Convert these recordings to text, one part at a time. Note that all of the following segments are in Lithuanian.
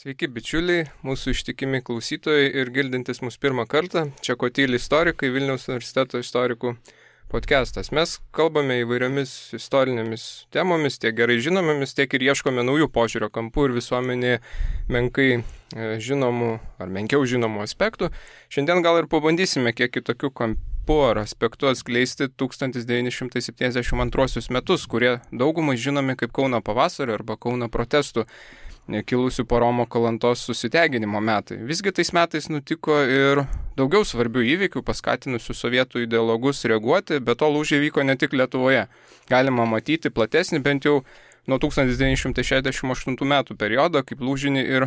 Sveiki bičiuliai, mūsų ištikimi klausytojai ir girdintys mūsų pirmą kartą. Čia Kotyli istorikai, Vilniaus universiteto istorikų podcastas. Mes kalbame įvairiomis istorinėmis temomis, tiek gerai žinomomis, tiek ir ieškome naujų požiūrio kampų ir visuomenėje menkai žinomų ar menkiau žinomų aspektų. Šiandien gal ir pabandysime kiek kitokių kampų ar aspektų atskleisti 1972 metus, kurie daugumai žinomi kaip Kauno pavasario arba Kauno protestų kilusių po Romo Kalantos susiteginimo metai. Visgi tais metais nutiko ir daugiau svarbių įvykių, paskatinusių sovietų ideologus reaguoti, bet to lūžiai vyko ne tik Lietuvoje. Galima matyti platesnį, bent jau nuo 1968 metų periodą, kaip lūžinį ir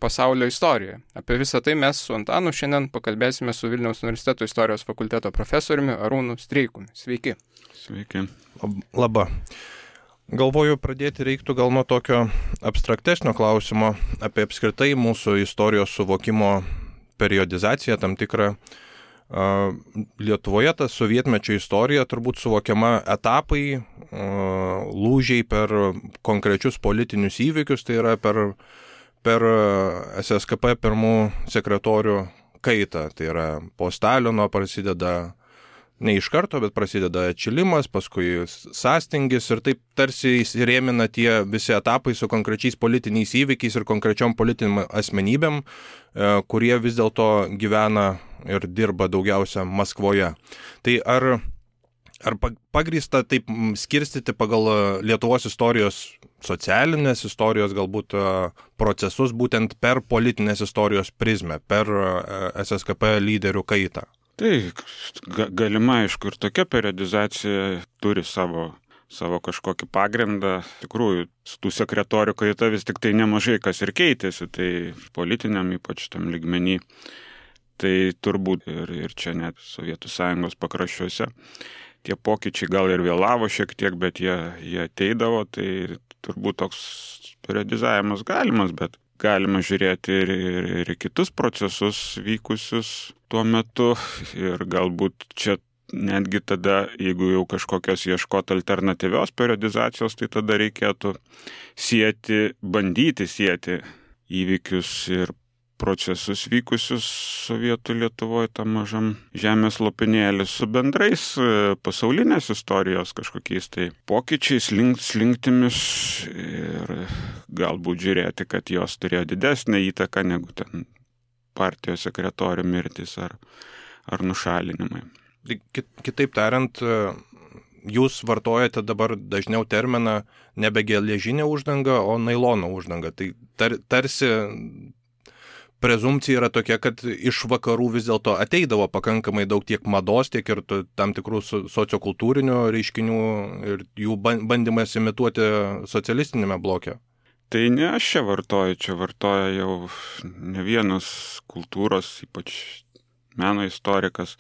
pasaulio istorijoje. Apie visą tai mes su Antanu šiandien pakalbėsime su Vilniaus universiteto istorijos fakulteto profesoriumi Arūnu Streikumi. Sveiki. Sveiki. Labą. Galvoju, pradėti reiktų gal nuo tokio abstraktesnio klausimo apie apskritai mūsų istorijos suvokimo periodizaciją tam tikrą. Lietuvoje ta sovietmečio istorija turbūt suvokiama etapai, lūžiai per konkrečius politinius įvykius, tai yra per SSKP pirmų sekretorių kaitą. Tai yra po Stalino prasideda ne iš karto, bet prasideda atšilimas, paskui sąstingis ir taip tarsi įsirėmina tie visi etapai su konkrečiais politiniais įvykiais ir konkrečiom politiniam asmenybėm, kurie vis dėlto gyvena ir dirba daugiausia Maskvoje. Tai ar pagrįsta taip skirstyti pagal Lietuvos istorijos, socialinės istorijos galbūt procesus būtent per politinės istorijos prizmę, per SSKP lyderių kaitą? Tai galima, aišku, ir tokia periodizacija turi savo kažkokį pagrindą. Tikrųjų, tų sekretorių kaita vis tik tai nemažai kas ir keitėsi, tai politiniam ypač tam lygmenį. Tai turbūt ir čia net Sovietų Sąjungos pakraščiuose. Tie pokyčiai gal ir vėlavo šiek tiek, bet jie ateidavo, tai turbūt toks periodizavimas galimas, bet galima žiūrėti ir kitus procesus vykusius tuo metu ir galbūt čia netgi tada, jeigu jau kažkokios ieškoti alternatyvios periodizacijos, tai tada reikėtų bandyti sieti įvykius ir procesus vykusius Sovietų Lietuvoje, tam mažam žemės lopinėlį su bendrais pasaulinės istorijos kažkokiais tai pokyčiais, slinktimis ir galbūt žiūrėti, kad jos turėjo didesnę įtaką negu ten partijos sekretorių mirtis ar nušalinimai. Kitaip tariant, jūs vartojate dabar dažniau terminą nebe geležinė uždanga, o nailono uždanga. Tai tarsi prezumpcija yra tokia, kad iš vakarų vis dėlto ateidavo pakankamai daug tiek mados, tiek ir tam tikrų sociokultūrinių reiškinių ir jų bandymas imituoti socialistinėme bloke. Tai ne aš čia vartoja jau ne vienas kultūros, ypač meno istorikas.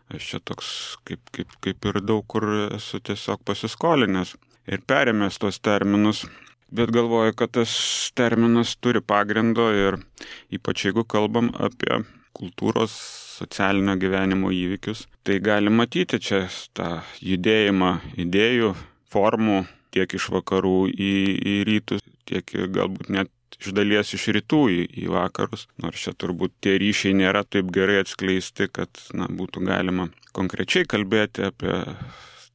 Aš čia toks kaip ir daug kur esu tiesiog pasiskolinęs ir perėmęs tos terminus. Bet galvoju, kad tas terminas turi pagrindo ir ypač jeigu kalbam apie kultūros socialinio gyvenimo įvykius, tai gali matyti čia tą judėjimą idėjų, formų tiek iš vakarų į rytus, tiek galbūt net iš dalies iš rytų į vakarus. Nors čia turbūt tie ryšiai nėra taip gerai atskleisti, kad būtų galima konkrečiai kalbėti apie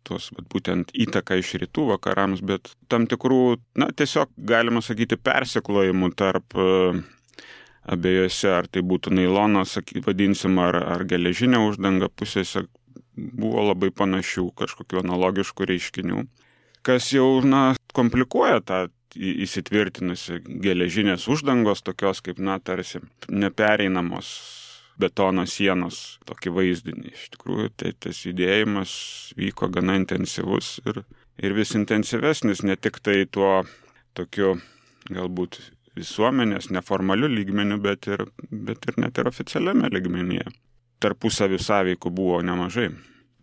tos būtent įtaką iš rytų vakarams, bet tam tikrų, tiesiog galima sakyti persiklojimų tarp abiejose, ar tai būtų nailonas, vadinsim, ar geležinė uždanga pusėse, buvo labai panašių kažkokių analogiškų reiškinių, kas jau, komplikuoja tą įsitvirtinusi geležinės uždangos, tokios kaip, tarsi nepereinamos betono sienos tokį vaizdinį. Iš tikrųjų, tai tas judėjimas vyko gana intensyvus ir vis intensyvesnis, ne tik tai tuo tokiu galbūt visuomenės neformaliu lygmeniu, bet ir net ir oficialiame lygmenyje. Tarpusavį sąveikų buvo nemažai.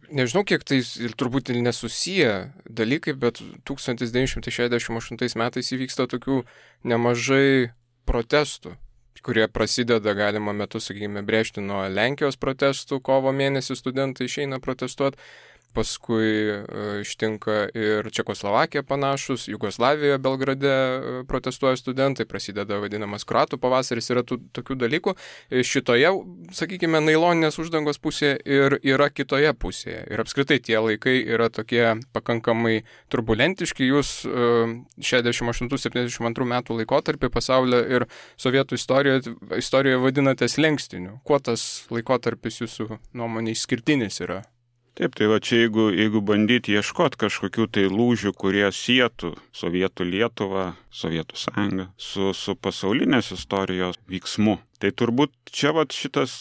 Nežinau, kiek tai ir turbūt ir nesusiję dalykai, bet 1968 metais įvyksta tokių nemažai protestų, kurie prasideda galima metu, sakykime, brėžti nuo Lenkijos protestų, kovo mėnesį studentai išeina protestuoti, paskui ištinka ir Čekoslovakija panašus, Jugoslavijoje, Belgrade protestuoja studentai, prasideda vadinamas kroatų pavasaris, yra tokių dalykų. Šitoje, sakykime, nailoninės uždangos pusėje ir yra kitoje pusėje. Ir apskritai tie laikai yra tokie pakankamai turbulentiški. Jūs 68-72 metų laikotarpį pasaulio ir sovietų istorijoje vadinate slenkstiniu. Kuo tas laikotarpis jūsų nuomonė išskirtinis yra? Taip, tai va čia jeigu bandyti ieškoti kažkokių tai lūžių, kurie sietų Sovietų Lietuvą, Sovietų Sąjungą su pasaulinės istorijos vyksmu, tai turbūt čia va šitas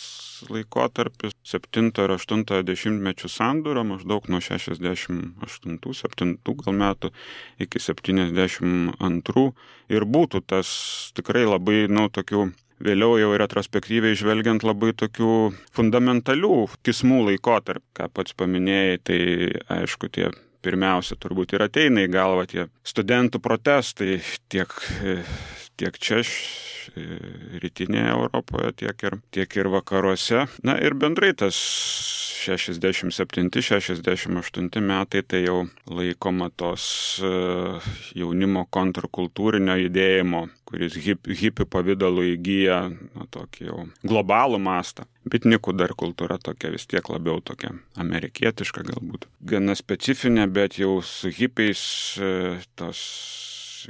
laikotarpis 7 ir 8 dešimtmečių sandūra, maždaug nuo 68-7 gal metų iki 72 ir būtų tas tikrai labai, tokių vėliau jau retrospektyviai žvelgiant labai tokių fundamentalių kismų laikotarp, ką pats paminėjai, tai aišku tie pirmiausia turbūt ir ateina į galvą tie studentų protestai tiek čia rytinėje Europoje, tiek ir vakaruose. Na ir bendrai tas 67-68 metai tai jau laikoma tos jaunimo kontrkultūrinio judėjimo, kuris hipių pavidalu įgyja tokį jau globalų mastą. Bitnikų dar kultūra tokia vis tiek labiau tokia amerikietiška galbūt. Gana specifinė, bet jau su hipiais tos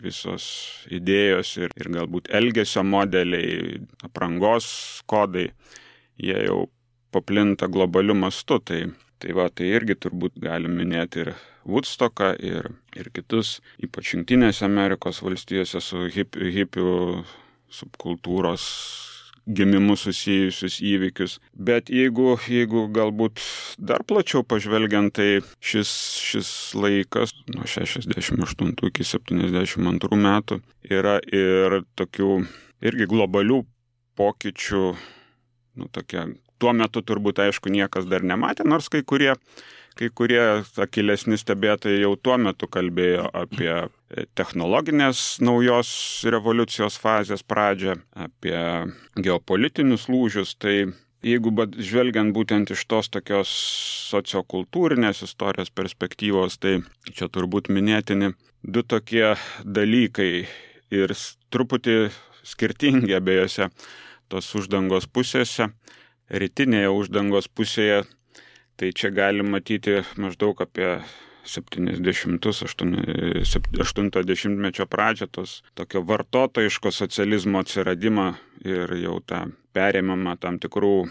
visos idėjos ir galbūt elgesio modeliai, aprangos kodai, jie jau paplinta globaliu mastu. Tai irgi turbūt galim minėti ir Woodstocką ir kitus, ypač Jungtinėse Amerikos valstijose su hipių subkultūros gimimu susijusius įvykius. Bet jeigu galbūt dar plačiau pažvelgiant, tai šis laikas nuo 68 iki 72 metų yra ir tokių irgi globalių pokyčių, tokia. Tuo metu turbūt, aišku, niekas dar nematė, nors kai kurie akylesni stebėtojai jau tuo metu kalbėjo apie technologinės naujos revoliucijos fazės pradžią, apie geopolitinius lūžius. Tai jeigu žvelgiant būtent iš tos tokios sociokultūrinės istorijos perspektyvos, tai čia turbūt minėtini du tokie dalykai ir truputį skirtingi abiejose tos uždangos pusėse. Rytinėje uždangos pusėje, tai čia galim matyti maždaug apie 70-80 pradžią, tos tokio vartotojiško socializmo atsiradimą ir jau tą perėmimą tam tikrų,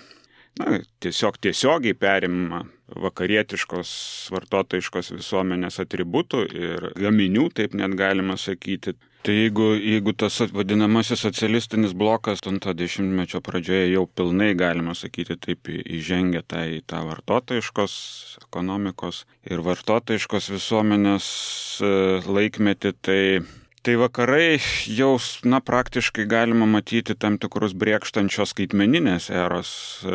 tiesiogiai perėmimą vakarietiškos vartotojiškos visuomenės atributų ir gaminių, taip net galima sakyti. Tai jeigu tas vadinamasis socialistinis blokas 80-mečio pradžioje jau pilnai, galima sakyti, taip įžengia į tą vartotojiškos ekonomikos ir vartotojiškos visuomenės laikmetį, tai vakarai jau praktiškai galima matyti tam tikrus brėkštančios skaitmeninės eros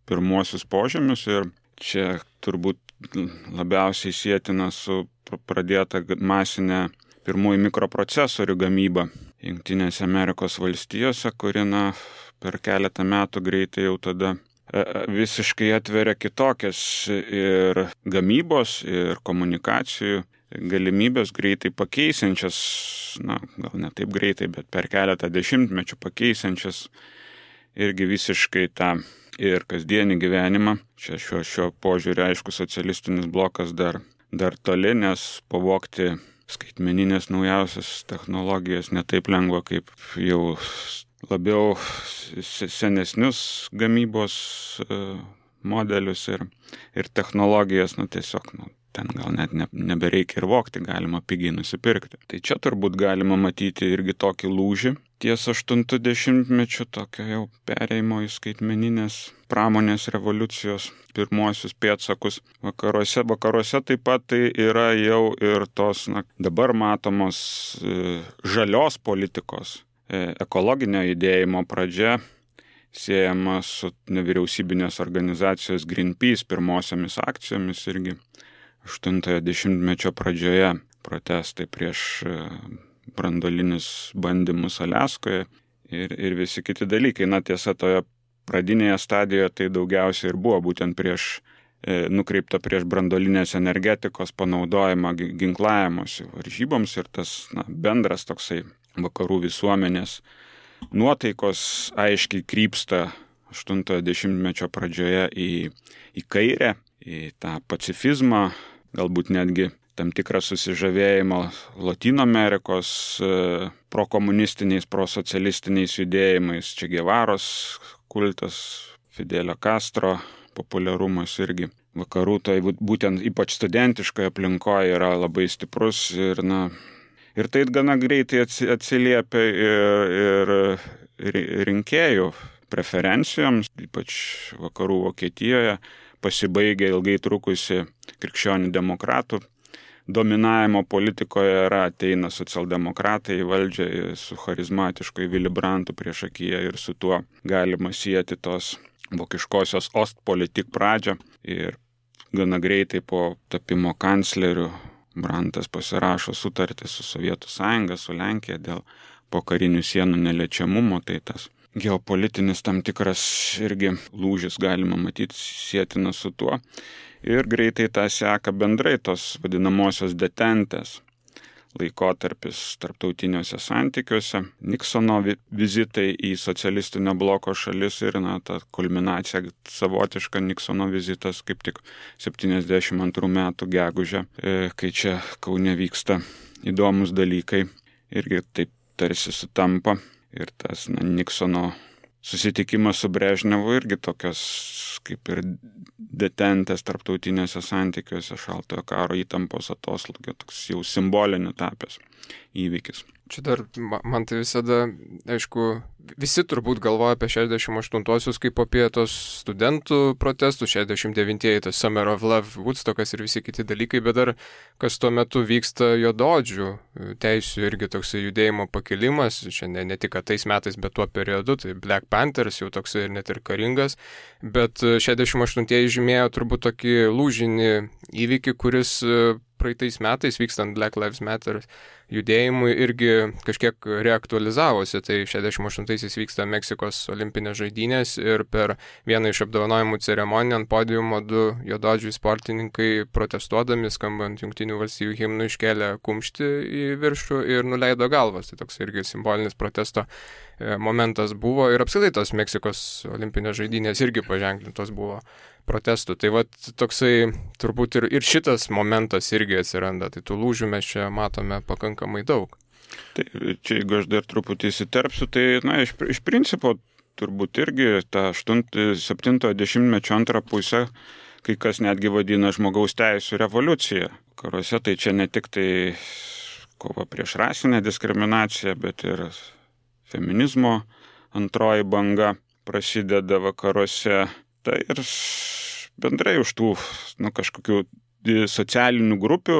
pirmuosius požymius ir čia turbūt labiausiai sietina su pradėta masinė pirmųjų mikroprocesorių gamyba Jungtinėse Amerikos valstijose, kuri per keletą metų greitai jau tada visiškai atveria kitokias ir gamybos, ir komunikacijų galimybės greitai pakeisančias, gal ne taip greitai, bet per keletą dešimtmečių pakeisančias irgi visiškai tą ir kasdienį gyvenimą. Čia šiuo požiūriu, aišku, socialistinis blokas dar toli, nes pavogti skaitmeninės naujausias technologijas netaip lengva, kaip jau labiau senesnius gamybos modelius ir technologijas, tiesiog ten gal net nebereikia ir vogti, galima pigiai nusipirkti. Tai čia turbūt galima matyti irgi tokį lūžį ties 80-mečiu, tokio jau perėjimo į skaitmeninės pramonės revoliucijos pirmuosius pėdsakus vakaruose taip pat tai yra jau ir tos dabar matomos žalios politikos, ekologinio judėjimo pradžia, siejama su nevyriausybinės organizacijos Greenpeace pirmosiomis akcijomis irgi 80-mečio pradžioje protestai prieš branduolinius bandymus Aliaskoje ir visi kiti dalykai. Tiesa, toje pradinėje stadijoje tai daugiausiai ir buvo būtent prieš nukreipta prieš branduolinės energetikos panaudojimą ginklavimuose varžyboms ir tas bendras toksai vakarų visuomenės nuotaikos aiškiai krypsta 80-mečio pradžioje į kairę, į tą pacifizmą, galbūt netgi tam tikrą susižavėjimą Latino Amerikos prokomunistiniais, prosocialistiniais judėjimais, Che Guevaros kultas, Fidelio Castro populiarumas irgi. Vakarų tai būtent ypač studentiškoje aplinkoje yra labai stiprus ir tai gana greitai atsiliepia ir rinkėjų preferencijoms, ypač vakarų Vokietijoje, pasibaigia ilgai trukusi krikščionių demokratų dominavimo politikoje ateina socialdemokratai į valdžią su charizmatišku Willy Brandtu priešakyje ir su tuo galima sieti tos vokiškosios Ostpolitik pradžią ir gana greitai po tapimo kancleriu Brandtas pasirašo sutartį su Sovietų sąjunga, su Lenkija dėl pokarinių sienų neliečiamumo, tai tas geopolitinis tam tikras irgi lūžis galima matyti sietina su tuo. Ir greitai tą seka bendrai tos vadinamosios detentės laikotarpis tarptautiniuose santykiuose, Niksono vizitai į socialistinio bloko šalis ir ta kulminacija savotiška Niksono vizitas kaip tik 72 metų gegužę, kai čia Kaune vyksta įdomus dalykai irgi taip tarsi sutampa ir tas Niksono susitikimas su Brežnevu irgi tokios kaip ir detentės tarptautiniuose santykiuose šaltojo karo įtampos atoslūgio, toks jau simboliniu tapęs įvykis. Čia dar, man tai visada, aišku, visi turbūt galvoja apie 68-osius kaip apie tos studentų protestų, 69-ieji, tas Summer of Love, Woodstockas ir visi kiti dalykai, bet dar kas tuo metu vyksta juodaodžių teisių irgi toksai judėjimo pakilimas, čia ne tik tais metais, bet tuo periodu, tai Black Panthers jau toksai ir net ir karingas, bet 68-ieji žymėjo turbūt tokį lūžinį įvykį, kuris praeitais metais vykstant Black Lives Matter judėjimui irgi kažkiek reaktualizavosi. Tai 68-aisiais vyksta Meksikos olimpinės žaidynės ir per vieną iš apdovanojimų ceremonijų ant podiumo 2 juodaodžiai sportininkai protestuodami, skambant Jungtinių valstijų himnų, iškėlė kumštį į viršų ir nuleido galvas. Tai toks irgi simbolinis protesto momentas buvo ir apskritai tos Meksikos olimpinės žaidynės irgi paženklintos buvo protestų. Tai va toksai turbūt ir šitas momentas irgi atsiranda. Tai tų lūžių mes čia matome pakankamai daug. Tai čia jeigu aš dar truputį įsiterpsiu, tai iš principo turbūt irgi tą 70-mečio antrą pusę kai kas netgi vadina žmogaus teisų revoliucija. Karuose tai čia ne tik tai kova prieš rasinę diskriminaciją, bet ir feminizmo antroji banga prasideda vakaruose. Tai ir bendrai už tų kažkokių socialinių grupių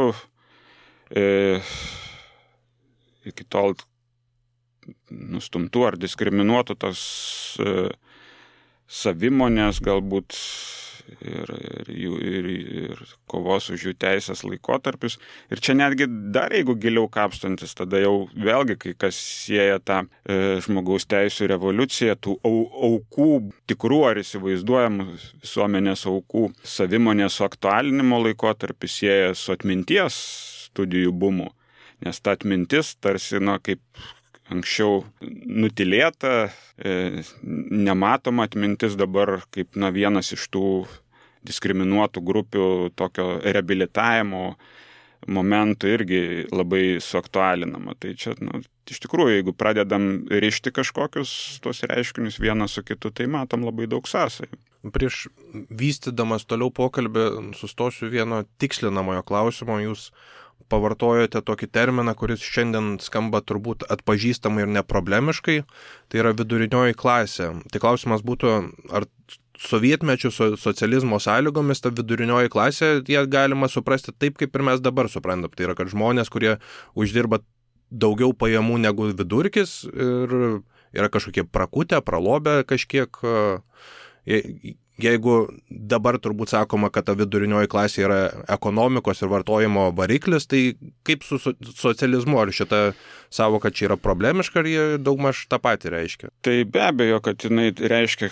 iki tol nustumtų ar diskriminuotų tos savimonės galbūt ir kovos už jų teisės laikotarpius. Ir čia netgi dar jeigu giliau kapstantis, tada jau vėlgi kai kas sieja tą žmogaus teisų revoliuciją, tų aukų, tikrų ar įsivaizduojamų visuomenės aukų savimonės suaktualinimo laikotarpį sieja su atminties studijų bumu. Nes ta atmintis tarsi, kaip anksčiau nutilėta, nematoma atmintis dabar kaip vienas iš tų diskriminuotų grupių tokio reabilitavimo momentų irgi labai suaktualinama. Tai čia, iš tikrųjų, jeigu pradedam rišti kažkokius tos reiškinius vieną su kitu, tai matom labai daug sąsajų. Prieš vystydamas toliau pokalbį sustosiu vieno tikslinamojo klausimo. Jūs pavartojote tokį terminą, kuris šiandien skamba turbūt atpažįstamai ir neproblemiškai, tai yra vidurinioji klasė. Tai klausimas būtų, ar sovietmečių socializmo sąlygomis ta vidurinioji klasė, ją galima suprasti taip, kaip ir mes dabar suprantam. Tai yra, kad žmonės, kurie uždirba daugiau pajamų negu vidurkis ir yra kažkokie prakutę, pralobę kažkiek. Jeigu dabar turbūt sakoma, kad ta vidurinioji klasė yra ekonomikos ir vartojimo variklis, tai kaip su socializmu? Ar šita savoka čia yra problemiška, ar jie daugmaž tą patį reiškia? Tai be abejo, kad jinai reiškia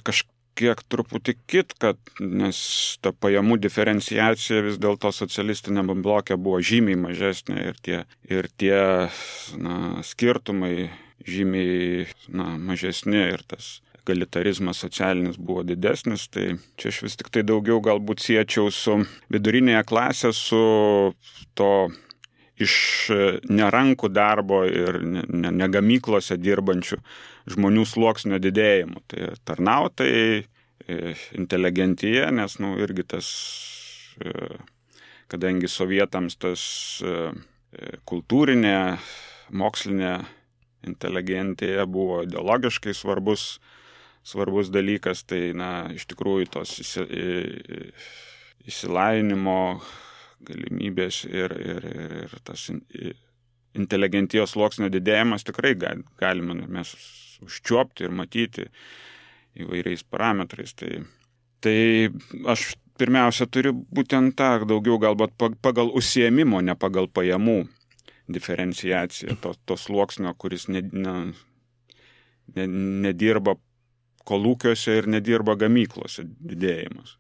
kiek truputį kitką, nes ta pajamų diferenciacija vis dėlto socialistinėme bloke buvo žymiai mažesnė ir tie skirtumai žymiai mažesni ir tas egalitarizmas socialinis buvo didesnis, tai čia aš vis tik tai daugiau galbūt siečiau su vidurinėje klasė, su to iš nerankų darbo ir negamyklose dirbančių žmonių sluoksnio didėjimu. Tai tarnautojai, inteligentija, nes irgi tas, kadangi sovietams tas kultūrinė, mokslinė inteligentija buvo ideologiškai svarbus dalykas, tai iš tikrųjų tos išsilavinimo galimybės ir tas inteligentijos sluoksnio didėjimas tikrai galime mes užčiuopti ir matyti įvairiais parametrais. Tai aš pirmiausia turiu būtent tą daugiau galbūt pagal užsiėmimo, ne pagal pajamų diferenciaciją to sluoksnio, kuris nedirba kolūkiuose ir nedirba gamyklose didėjimas.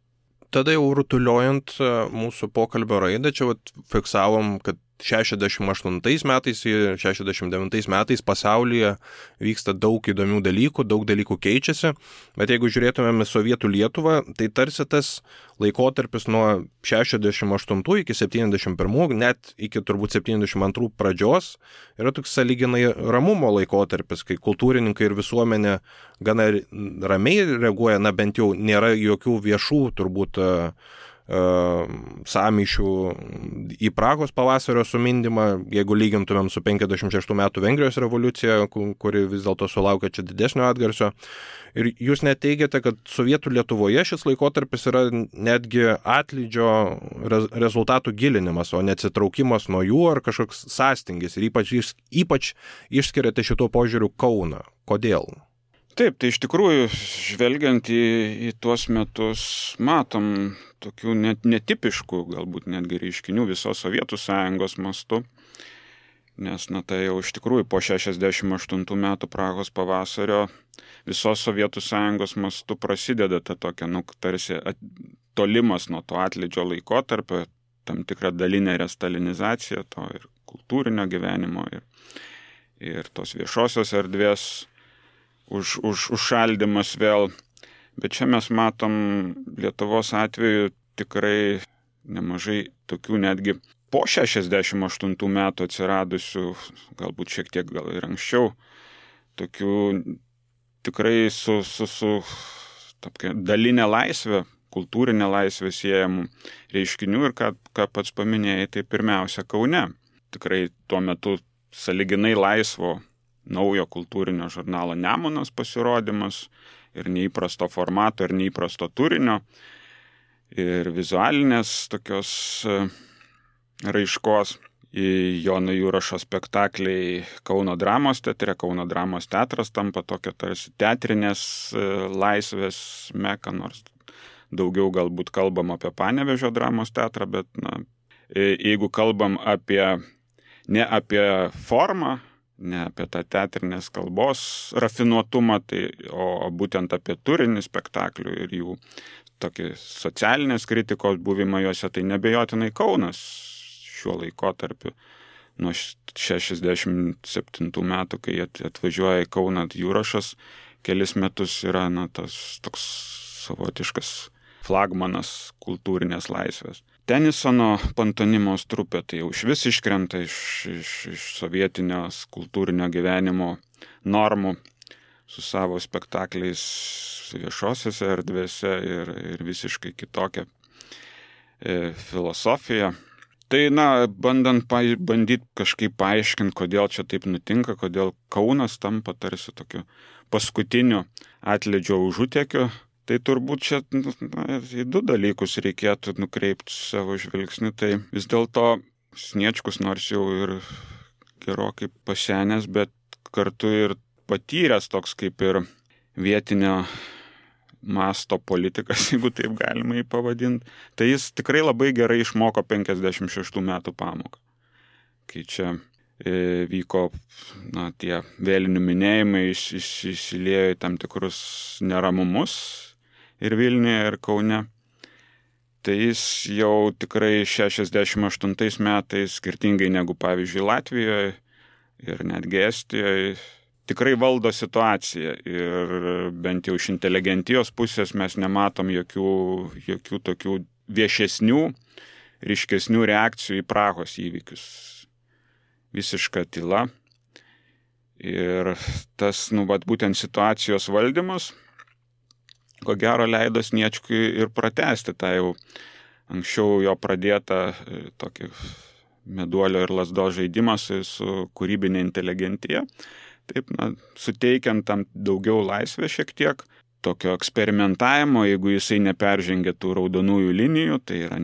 Tada jau rutuliojant mūsų pokalbio raidą, čia fiksavom, kad 68 metais ir 69 metais pasaulyje vyksta daug įdomių dalykų, daug dalykų keičiasi, bet jeigu žiūrėtumėme Sovietų Lietuvą, tai tarsi tas laikotarpis nuo 68 iki 71, net iki turbūt 72 pradžios, yra toks sąlyginai ramumo laikotarpis, kai kultūrininkai ir visuomenė gana ramiai reaguoja, bent jau nėra jokių viešų turbūt sąmyšių į Prahos pavasario sumindymą, jeigu lygintumėm su 56 metų Vengrijos revoliucija, kuri vis dėlto sulaukė čia didesnio atgarsio. Ir jūs net teigiate, kad Sovietų Lietuvoje šis laikotarpis yra netgi atlydžio rezultatų gilinimas, o neatsitraukimas nuo jų ar kažkoks sąstingis. Ir ypač išskiriate šituo požiūriu Kauną. Kodėl? Taip, tai iš tikrųjų, žvelgiant į tuos metus, matom tokių netipiškų, galbūt netgi reiškinių visos Sovietų Sąjungos mastu, nes tai jau iš tikrųjų po 68 metų Prahos pavasario visos Sovietų Sąjungos mastu prasideda ta tokia, tarsi tolimas nuo to atlydžio laikotarpio, tam tikra dalinė restalinizacija to ir kultūrinio gyvenimo ir tos viešosios erdvės užšaldymas vėl. Bet čia mes matom Lietuvos atveju tikrai nemažai tokių netgi po 68 metų atsiradusių, galbūt šiek tiek gal ir anksčiau, tokių tikrai su dalinė laisvė, kultūrinė laisvė siejamų reiškinių ir ką pats paminėjai, tai pirmiausia Kaune. Tikrai tuo metu sąlyginai laisvo naujo kultūrinio žurnalo Nemunas pasirodymas ir neįprasto formato ir neįprasto turinio ir vizualinės tokios raiškos. Jono Jurašo spektakliai Kauno dramos teatre. Kauno dramos teatras tampa tokia tarsi teatrinės laisvės meka, nors daugiau galbūt kalbam apie Panevėžio dramos teatrą, bet jeigu kalbam ne apie formą, ne apie tą teatrinės kalbos rafinuotumą, o būtent apie turinį spektaklių ir jų tokį socialinės kritikos buvimą juose, tai nebejotinai Kaunas šiuo laikotarpiu. Nuo 67 metų, kai atvažiuoja į Kauną Jurašas, kelis metus yra tas toks savotiškas flagmanas kultūrinės laisvės. Tenisono pantonimos trupė tai jau išvis iškrenta iš sovietinio kultūrinio gyvenimo normų su savo spektakliais viešosiose erdvėse ir visiškai kitokia filosofija. Tai, bandyti kažkaip paaiškinti, kodėl čia taip nutinka, kodėl Kaunas tampa tarsi tokiu paskutiniu atlydžio užutėkiu. Tai turbūt čia į du dalykus reikėtų nukreipti savo žvilgsnį. Tai vis dėlto Sniečkus nors jau ir gerokai pasenęs, bet kartu ir patyręs toks kaip ir vietinio masto politikas, jeigu taip galima jį pavadinti. Tai jis tikrai labai gerai išmoko 56 metų pamoką. Kai čia vyko tie vėlinių minėjimai, įsiliejo į tam tikrus neramumus ir Vilniuje, ir Kaune. Tai jis jau tikrai 68 metais, skirtingai negu pavyzdžiui Latvijoje ir netgi Estijoje, tikrai valdo situaciją ir bent jau iš inteligentijos pusės mes nematom jokių tokių viešesnių, ryškesnių reakcijų į Prahos įvykius. Visiška tyla. Ir tas, būtent situacijos valdymas, ko gero leido Sniečkui ir pratęsti tą jau anksčiau jo pradėtą tokį meduolio ir lazdos žaidimą su kūrybinė inteligentija. Taip, suteikiant tam daugiau laisvę šiek tiek, tokio eksperimentavimo, jeigu jisai neperžengia tų raudonųjų linijų, tai yra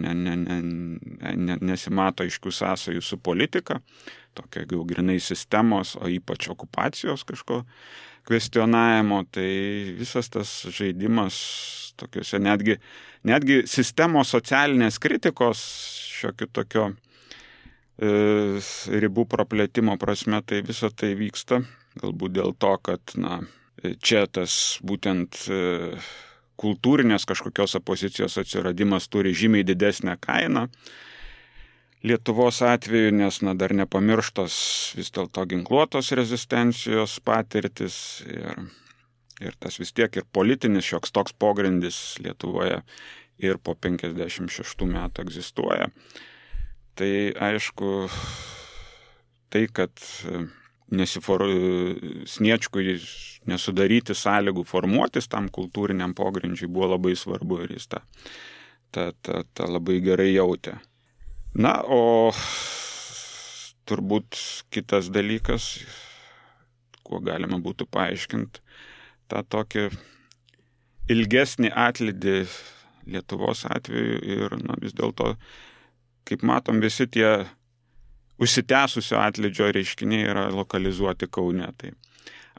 nesimato aiškių sąsajų su politika, tokio jau grinai sistemos, o ypač okupacijos kažko kvestionavimo, tai visas tas žaidimas tokiuose netgi sistemos socialinės kritikos šiokio tokio ribų praplėtimo prasme, tai visa tai vyksta. Galbūt dėl to, kad čia tas būtent kultūrinės kažkokios opozicijos atsiradimas turi žymiai didesnę kainą. Lietuvos atveju, nes dar nepamirštos vis dėlto ginkluotos rezistencijos patirtis ir tas vis tiek ir politinis šioks toks pogrindis Lietuvoje ir po 56 metų egzistuoja. Tai aišku, tai, kad Sniečkui nesudaryti sąlygų formuotis tam kultūriniam pogrindžiui buvo labai svarbu ir jis tą labai gerai jautė. O turbūt kitas dalykas, kuo galima būtų paaiškinti, tą tokį ilgesnį atlydį Lietuvos atveju ir vis dėlto, kaip matom, visi tie užsitęsusio atlydžio reiškiniai yra lokalizuoti Kaune. Tai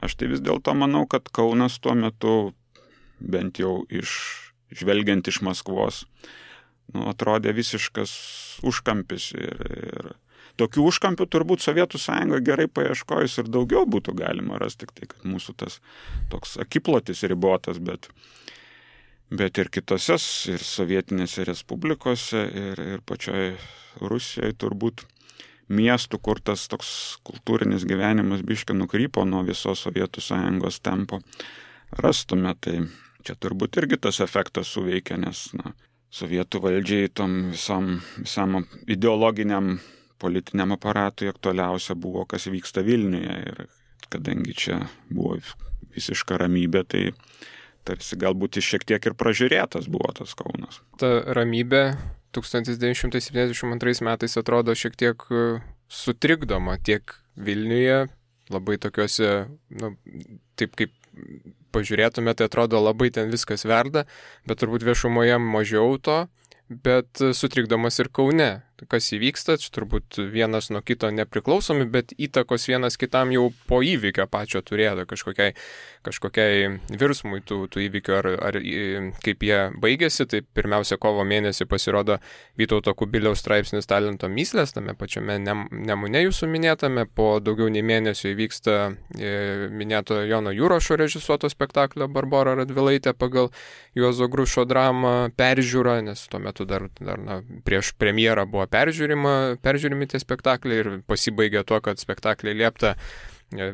aš tai vis dėlto manau, kad Kaunas tuo metu, bent jau žvelgiant iš Maskvos, atrodė visiškas užkampis ir tokių užkampių turbūt Sovietų Sąjungoje gerai paieškojus ir daugiau būtų galima rasti, tik tai, kad mūsų tas toks akiplotis ribotas, bet ir kitose, ir sovietinėse respublikose, ir pačioje Rusijoje turbūt miestų, kur tas toks kultūrinis gyvenimas biškį nukrypo nuo visos Sovietų Sąjungos tempo, rastume. Tai čia turbūt irgi tas efektas suveikia, nes Sovietų valdžiai tom visam ideologiniam politiniam aparatui aktualiausia buvo, kas vyksta Vilniuje. Ir kadangi čia buvo visiška ramybė, tai tarsi galbūt šiek tiek ir pražiūrėtas buvo tas Kaunas. Ta ramybė 1972 metais atrodo šiek tiek sutrikdoma tiek Vilniuje, labai tokiuose, taip kaip pažiūrėtume, tai atrodo labai ten viskas verda, bet turbūt viešumoje mažiau to, bet sutrikdomas ir Kaune. Kas įvyksta, čia turbūt vienas nuo kito nepriklausomi, bet įtakos vienas kitam jau po įvykio pačio turėjo kažkokiai virsmui tų įvykių ar kaip jie baigėsi. Tai pirmiausia, kovo mėnesį pasirodo Vytauto Kubiliaus straipsnis Talento mįslės, tame pačiame Nemune jūsų minėtame, po daugiau nei mėnesio įvyksta minėto Jono Jurašo režisuoto spektaklio Barbora Radvilaitė pagal Juozo Grušo dramą peržiūra, nes tuo metu dar prieš premjerą buvo peržiūrimi tie spektakliai ir pasibaigė tuo, kad spektakliai liepta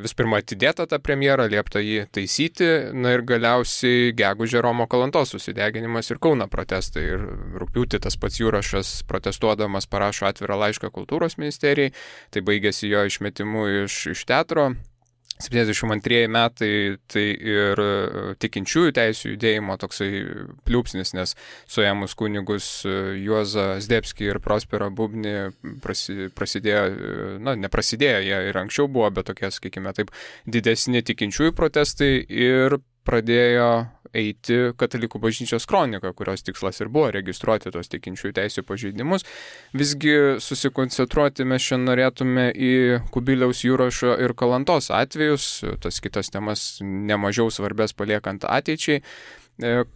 vis pirma atidėta tą premjerą, liepta jį taisyti, ir galiausiai gegužė Romo Kalantos susideginimas ir Kauno protestai. Ir rugpjūtį tas pats Jurašas protestuodamas parašo atvirą laišką kultūros ministerijai, tai baigėsi jo išmetimu iš teatro. 72 metai tai ir tikinčiųjų teisių judėjimo toksai pliūpsnis, nes suėmus kunigus Juozą Zdebskį ir Prosperą Bubnį prasidėjo, neprasidėjo, jie ir anksčiau buvo, bet tokie, sakykime taip, didesni tikinčiųjų protestai ir pradėjo eiti Katalikų bažnyčios kronika, kurios tikslas ir buvo registruoti tos tikinčiųjų teisių pažeidimus. Visgi susikoncentruoti mes šiandien norėtume į Kubiliaus, Jurašo ir Kalantos atvejus, tas kitas temas nemažiau svarbės paliekant ateičiai.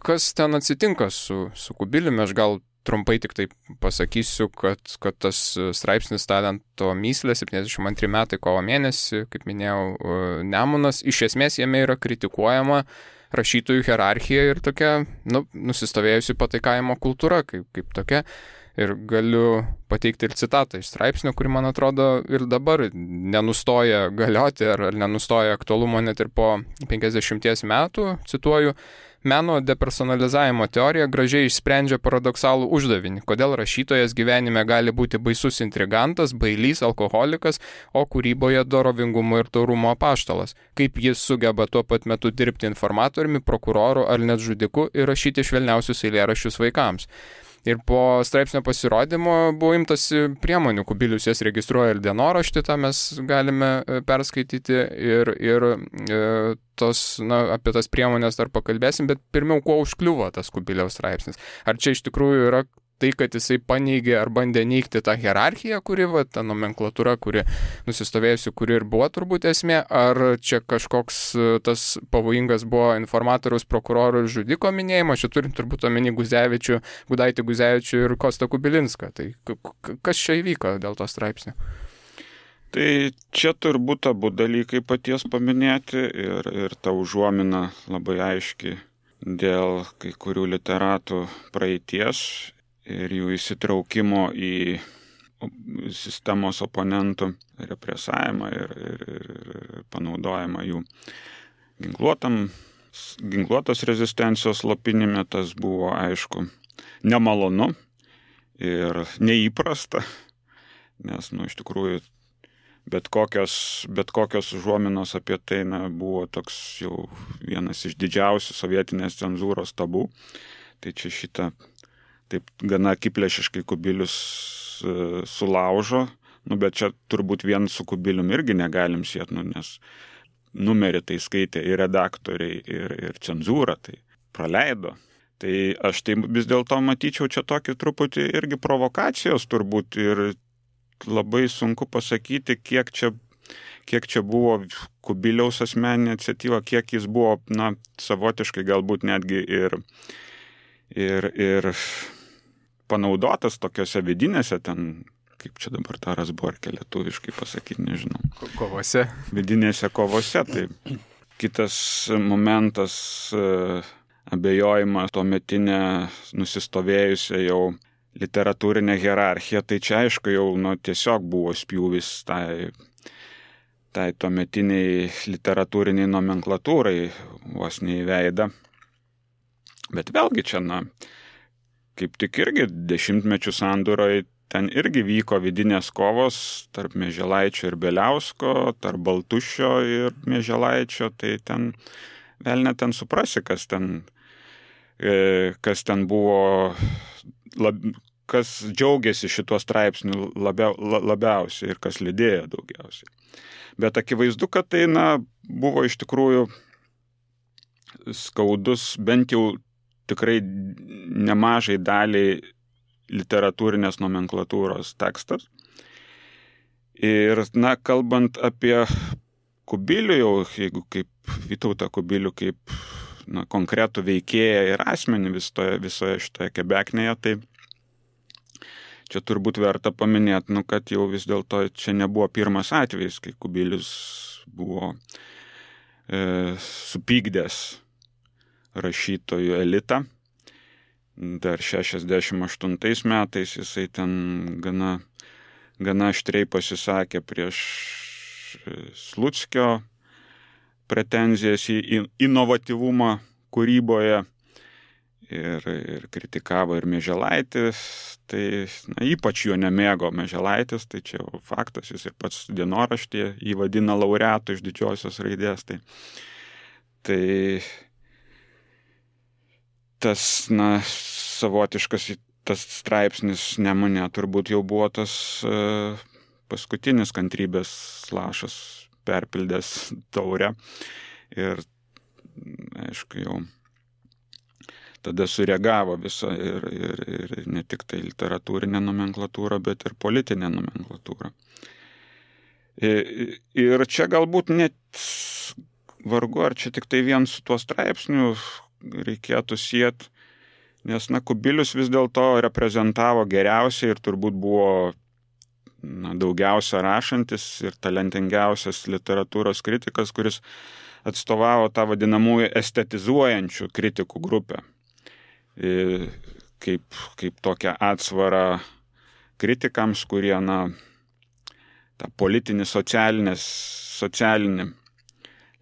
Kas ten atsitinka su Kubiliumi? Aš gal trumpai tik tai pasakysiu, kad tas straipsnis Talento mįslė 72 metai kovo mėnesį, kaip minėjau, Nemunas, iš esmės jame yra kritikuojama rašytojų hierarchija ir tokia, nusistovėjusi pataikavimo kultūra kaip tokia. Ir galiu pateikti ir citatą iš straipsnio, kuri, man atrodo, ir dabar nenustoja galioti ar nenustoja aktualumo net ir po 50 metų, cituoju, meno depersonalizavimo teorija gražiai išsprendžia paradoksalų uždavinį, kodėl rašytojas gyvenime gali būti baisus intrigantas, bailys, alkoholikas, o kūryboje dorovingumo ir taurumo apaštalas, kaip jis sugeba tuo pat metu dirbti informatoriumi, prokuroru ar net žudiku ir rašyti švelniausius eilėraščius vaikams. Ir po straipsnio pasirodymo buvo imtasi priemonių, Kubilius jas registruoja ir dienoraštį, tą mes galime perskaityti ir apie tas priemonės dar pakalbėsim, bet pirmiau, kuo užkliuvo tas Kubiliaus straipsnis. Ar čia iš tikrųjų yra tai, kad jisai paneigė ar bandė neigti tą hierarchiją, kuri, ta nomenklatūra, kuri nusistovėjusi, kuri ir buvo turbūt esmė, ar čia kažkoks tas pavojingas buvo informatoriaus, prokuroro ir žudiko minėjimas, čia turim turbūt omeny Gudaitį Guzevičių ir Kostą Kubilinską. Tai kas čia įvyko dėl to straipsnio? Tai čia turbūt abu dalykai paties paminėti ir ta užuomina labai aiški dėl kai kurių literatų praeities ir jų įsitraukimo į sistemos oponentų represavimą ir panaudojimą jų ginkluotos rezistencijos slopinime. Tas buvo, aišku, nemalonu ir neįprasta, nes, iš tikrųjų, bet kokios užuominos apie tai buvo toks jau vienas iš didžiausių sovietinės cenzūros tabų. Tai čia šitą taip gana akiplėšiškai Kubilius sulaužo, bet čia turbūt vien su Kubilium irgi negalim siet, nes numerį tai skaitė ir redaktoriai, ir cenzūra, tai praleido. Tai aš tai vis dėlto matyčiau čia tokį truputį irgi provokacijos turbūt ir labai sunku pasakyti, kiek čia buvo Kubiliaus asmeninė iniciatyva, kiek jis buvo, savotiškai galbūt netgi ir panaudotas tokiose vidinėse ten, kaip čia dabar tą Razborkę lietuviškai pasakyti, nežinau. Kovose. Vidinėse kovose. Tai kitas momentas, abejojimas tuometinė nusistovėjusią jau literatūrinę hierarchiją, tai čia aišku jau tiesiog buvo spjūvis tai tuometiniai literatūriniai nomenklatūrai vos neįveidą. Bet vėlgi čia, kaip tik irgi dešimtmečių sandūroje ten irgi vyko vidinės kovos tarp Mieželaičio ir Beliausko, tarp Baltušio ir Mieželaičio, tai ten vėl net ten suprasi, kas ten buvo, kas džiaugiasi šituo straipsniu labiausiai ir kas lydėjo daugiausiai. Bet akivaizdu, kad tai buvo iš tikrųjų skaudus, bent jau tikrai nemažai daliai literatūrinės nomenklatūros tekstas. Ir, kalbant apie Kubilių, jau jeigu kaip Vytautą Kubilių, kaip konkretų veikėją ir asmenį visoje šitoje kebeknėje, tai čia turbūt verta paminėti, kad jau vis dėlto čia nebuvo pirmas atvejis, kai Kubilius buvo supykdęs rašytojų elitą. Dar 68 metais jisai ten gana aštriai pasisakė prieš Sluckio pretenzijas į inovatyvumą kūryboje ir kritikavo ir Mieželaitis. Tai ypač jo nemėgo Mieželaitis, tai čia jau faktas, jis ir pats dienoraštyje jį vadina laureatu iš didžiosios raidės. Tai tas, savotiškas tas straipsnis Nemune turbūt jau buvo tas paskutinis kantrybės lašas perpildęs taurę. Ir, aišku, jau tada sureagavo visa ir ne tik tai literatūrinė nomenklatūra, bet ir politinė nomenklatūra. Ir čia galbūt net vargu, ar čia tik tai vien su tuo straipsniu reikėtų siet, nes Kubilius vis dėlto reprezentavo geriausiai ir turbūt buvo daugiausia rašantis ir talentingiausias literatūros kritikas, kuris atstovavo tą vadinamųjų estetizuojančių kritikų grupę. Kaip tokią atsvarą kritikams, kurie, tą politinį, socialinį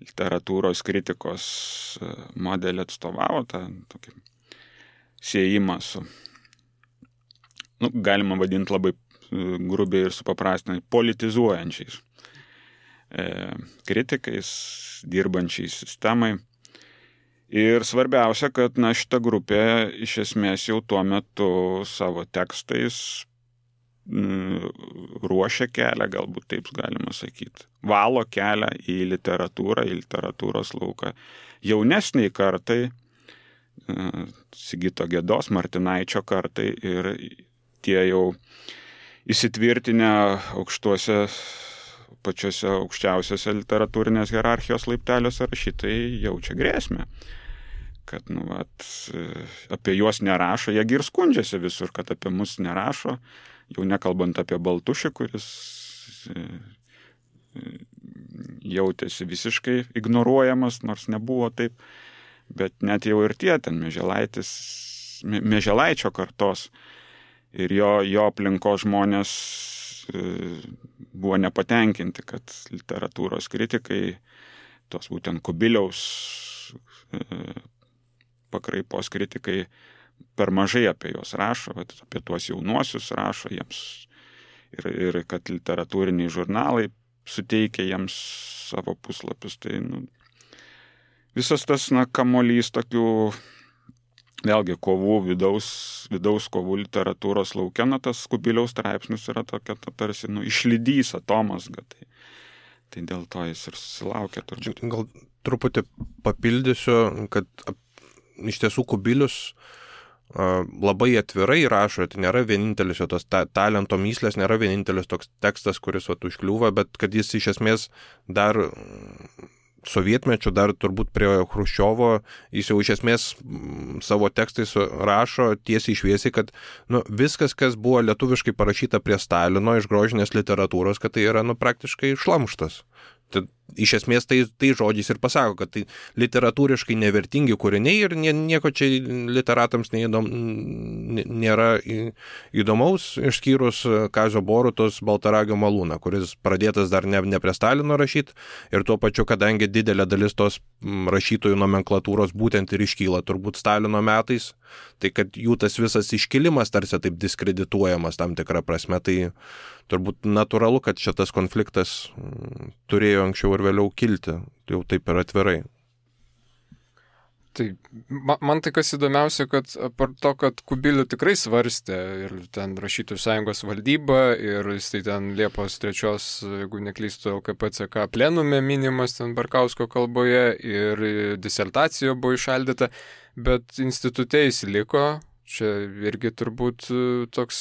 literatūros kritikos modelį atstovavo, tą tokį siejimą su, galima vadinti labai grubiai ir supaprastinai, politizuojančiais kritikais, dirbančiais sistemai. Ir svarbiausia, kad šita grupė iš esmės jau tuo metu savo tekstais ruošia kelią, galbūt taip galima sakyti, valo kelią į literatūrą, į literatūros lauką jaunesniai kartai, Sigito Gedos, Martinaičio kartai, ir tie jau įsitvirtinę pačiose aukščiausiose literatūrinės hierarchijos laipteliuose rašytojai jaučia grėsmę, kad apie juos nerašo, jie ir skundžiasi visur, kad apie mus nerašo, jau nekalbant apie Baltušį, kuris jautėsi visiškai ignoruojamas, nors nebuvo taip, bet net jau ir tie ten Mieželaičio kartos ir jo aplinkos žmonės buvo nepatenkinti, kad literatūros kritikai, tos būtent Kubiliaus pakraipos kritikai, per mažai apie juos rašo, apie tuos jaunuosius rašo jiems ir kad literatūriniai žurnalai suteikia jiems savo puslapius. Tai visas tas kamuolys tokių, vėlgi, kovų, vidaus kovų literatūros lauke, tas Kubiliaus straipsnis yra tokia tarsi išlydys atomazga. Tai dėl to jis ir susilaukė turbūt. Gal truputį papildysiu, kad iš tiesų Kubilius labai atvirai rašo, tai nėra vienintelis jo tos talento myslės, nėra vienintelis toks tekstas, kuris užkliūva, bet kad jis iš esmės dar sovietmečiu, dar turbūt prie Chruščiovo, jis jau iš esmės savo tekstais rašo tiesiai šviesiai, kad viskas, kas buvo lietuviškai parašyta prie Stalino iš grožinės literatūros, kad tai yra praktiškai šlamštas. Tai iš esmės tai žodžiais ir pasako, kad tai literatūriškai nevertingi kūriniai ir nieko čia literatams nėra įdomaus, išskyrus Kazio Borutos Baltaragio malūną, kuris pradėtas dar ne prie Stalino rašyti, ir tuo pačiu, kadangi didelė dalis tos rašytojų nomenklatūros būtent ir iškyla turbūt Stalino metais, tai kad jų tas visas iškilimas tarsi taip diskredituojamas tam tikrą prasme, tai turbūt natūralu, kad šitas konfliktas turėjo anksčiau ir vėliau kilti, jau taip ir atvirai. Tai man tai kas įdomiausia, kad apart to, kad Kubilių tikrai svarstė ir ten Rašytojų sąjungos valdyba ir jis tai ten Liepos 3, jeigu neklystu, LKPCK plenume minimas ten Barkausko kalboje ir disertacija buvo išaldyta, bet institute jis liko. Čia irgi turbūt toks,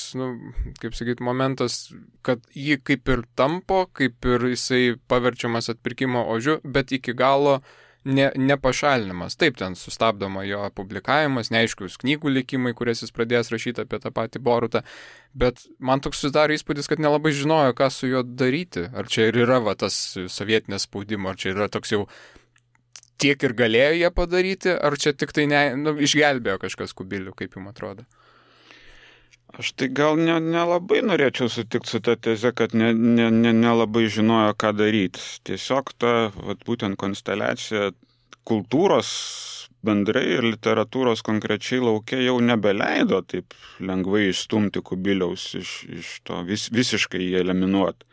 kaip sakyti, momentas, kad jį kaip ir tampo, kaip ir jisai paverčiamas atpirkimo ožiu, bet iki galo nepašalinimas. Taip, ten sustabdoma jo publikavimas, neaiškius knygų likimai, kurias jis pradės rašyti apie tą patį Borutą, bet man toks susidaro įspūdis, kad nelabai žinojo, ką su juo daryti. Ar čia ir yra tas sovietinės spaudimo, ar čia yra toks jau tiek ir galėjo jie padaryti, ar čia tik tai išgelbėjo kažkas Kubilių, kaip jums atrodo? Aš tai gal nelabai norėčiau sutikti su ta teze, kad nelabai žinojo, ką daryti. Tiesiog ta būtent konsteliacija kultūros bendrai ir literatūros konkrečiai laukia jau nebeleido taip lengvai išstumti Kubiliaus iš to visiškai jį eliminuoti.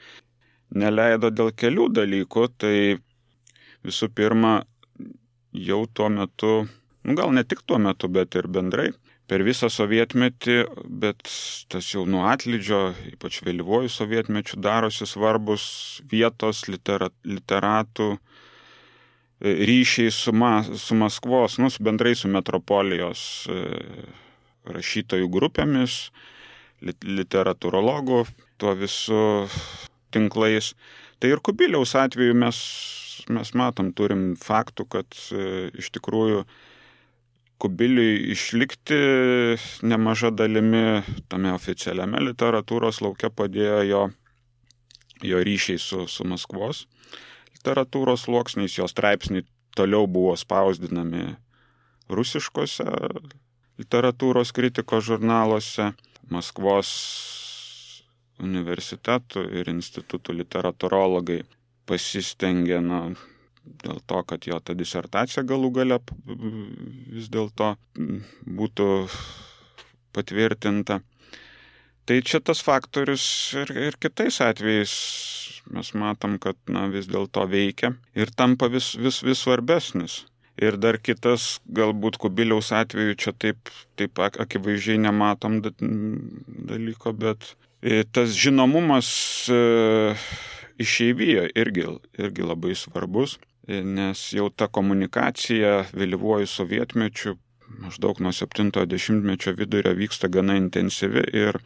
Neleido dėl kelių dalykų, tai visų pirma, jau tuo metu, gal ne tik tuo metu, bet ir bendrai, per visą sovietmetį, bet tas jau nuo atlydžio, ypač vėlyvuoju sovietmečiu, darosi svarbus vietos literatų ryšiai su Maskvos, bendrai su metropolijos rašytojų grupėmis, literatūrologų, tuo visų tinklais. Tai ir Kubiliaus atveju mes matom, turim faktų, kad iš tikrųjų Kubiliui išlikti nemaža dalimi tame oficialiame literatūros lauke padėjo jo jo ryšiai su Maskvos literatūros sluoksniais, jo straipsniai toliau buvo spausdinami rusiškose literatūros kritikos žurnaluose, Maskvos universitetų ir institutų literatūrologai pasistengė, dėl to, kad jo ta disertacija galų gale vis dėlto būtų patvirtinta. Tai čia tas faktorius ir kitais atvejais mes matom, kad vis dėlto veikia ir tampa vis svarbesnis. Ir dar kitas, galbūt Kubiliaus atveju čia taip akivaizdžiai nematom dalyko, bet tas žinomumas išeivijoje irgi labai svarbus, nes jau ta komunikacija vėlyvuoju sovietmečiu maždaug nuo 70-mečio vidurio vyksta gana intensyvi ir,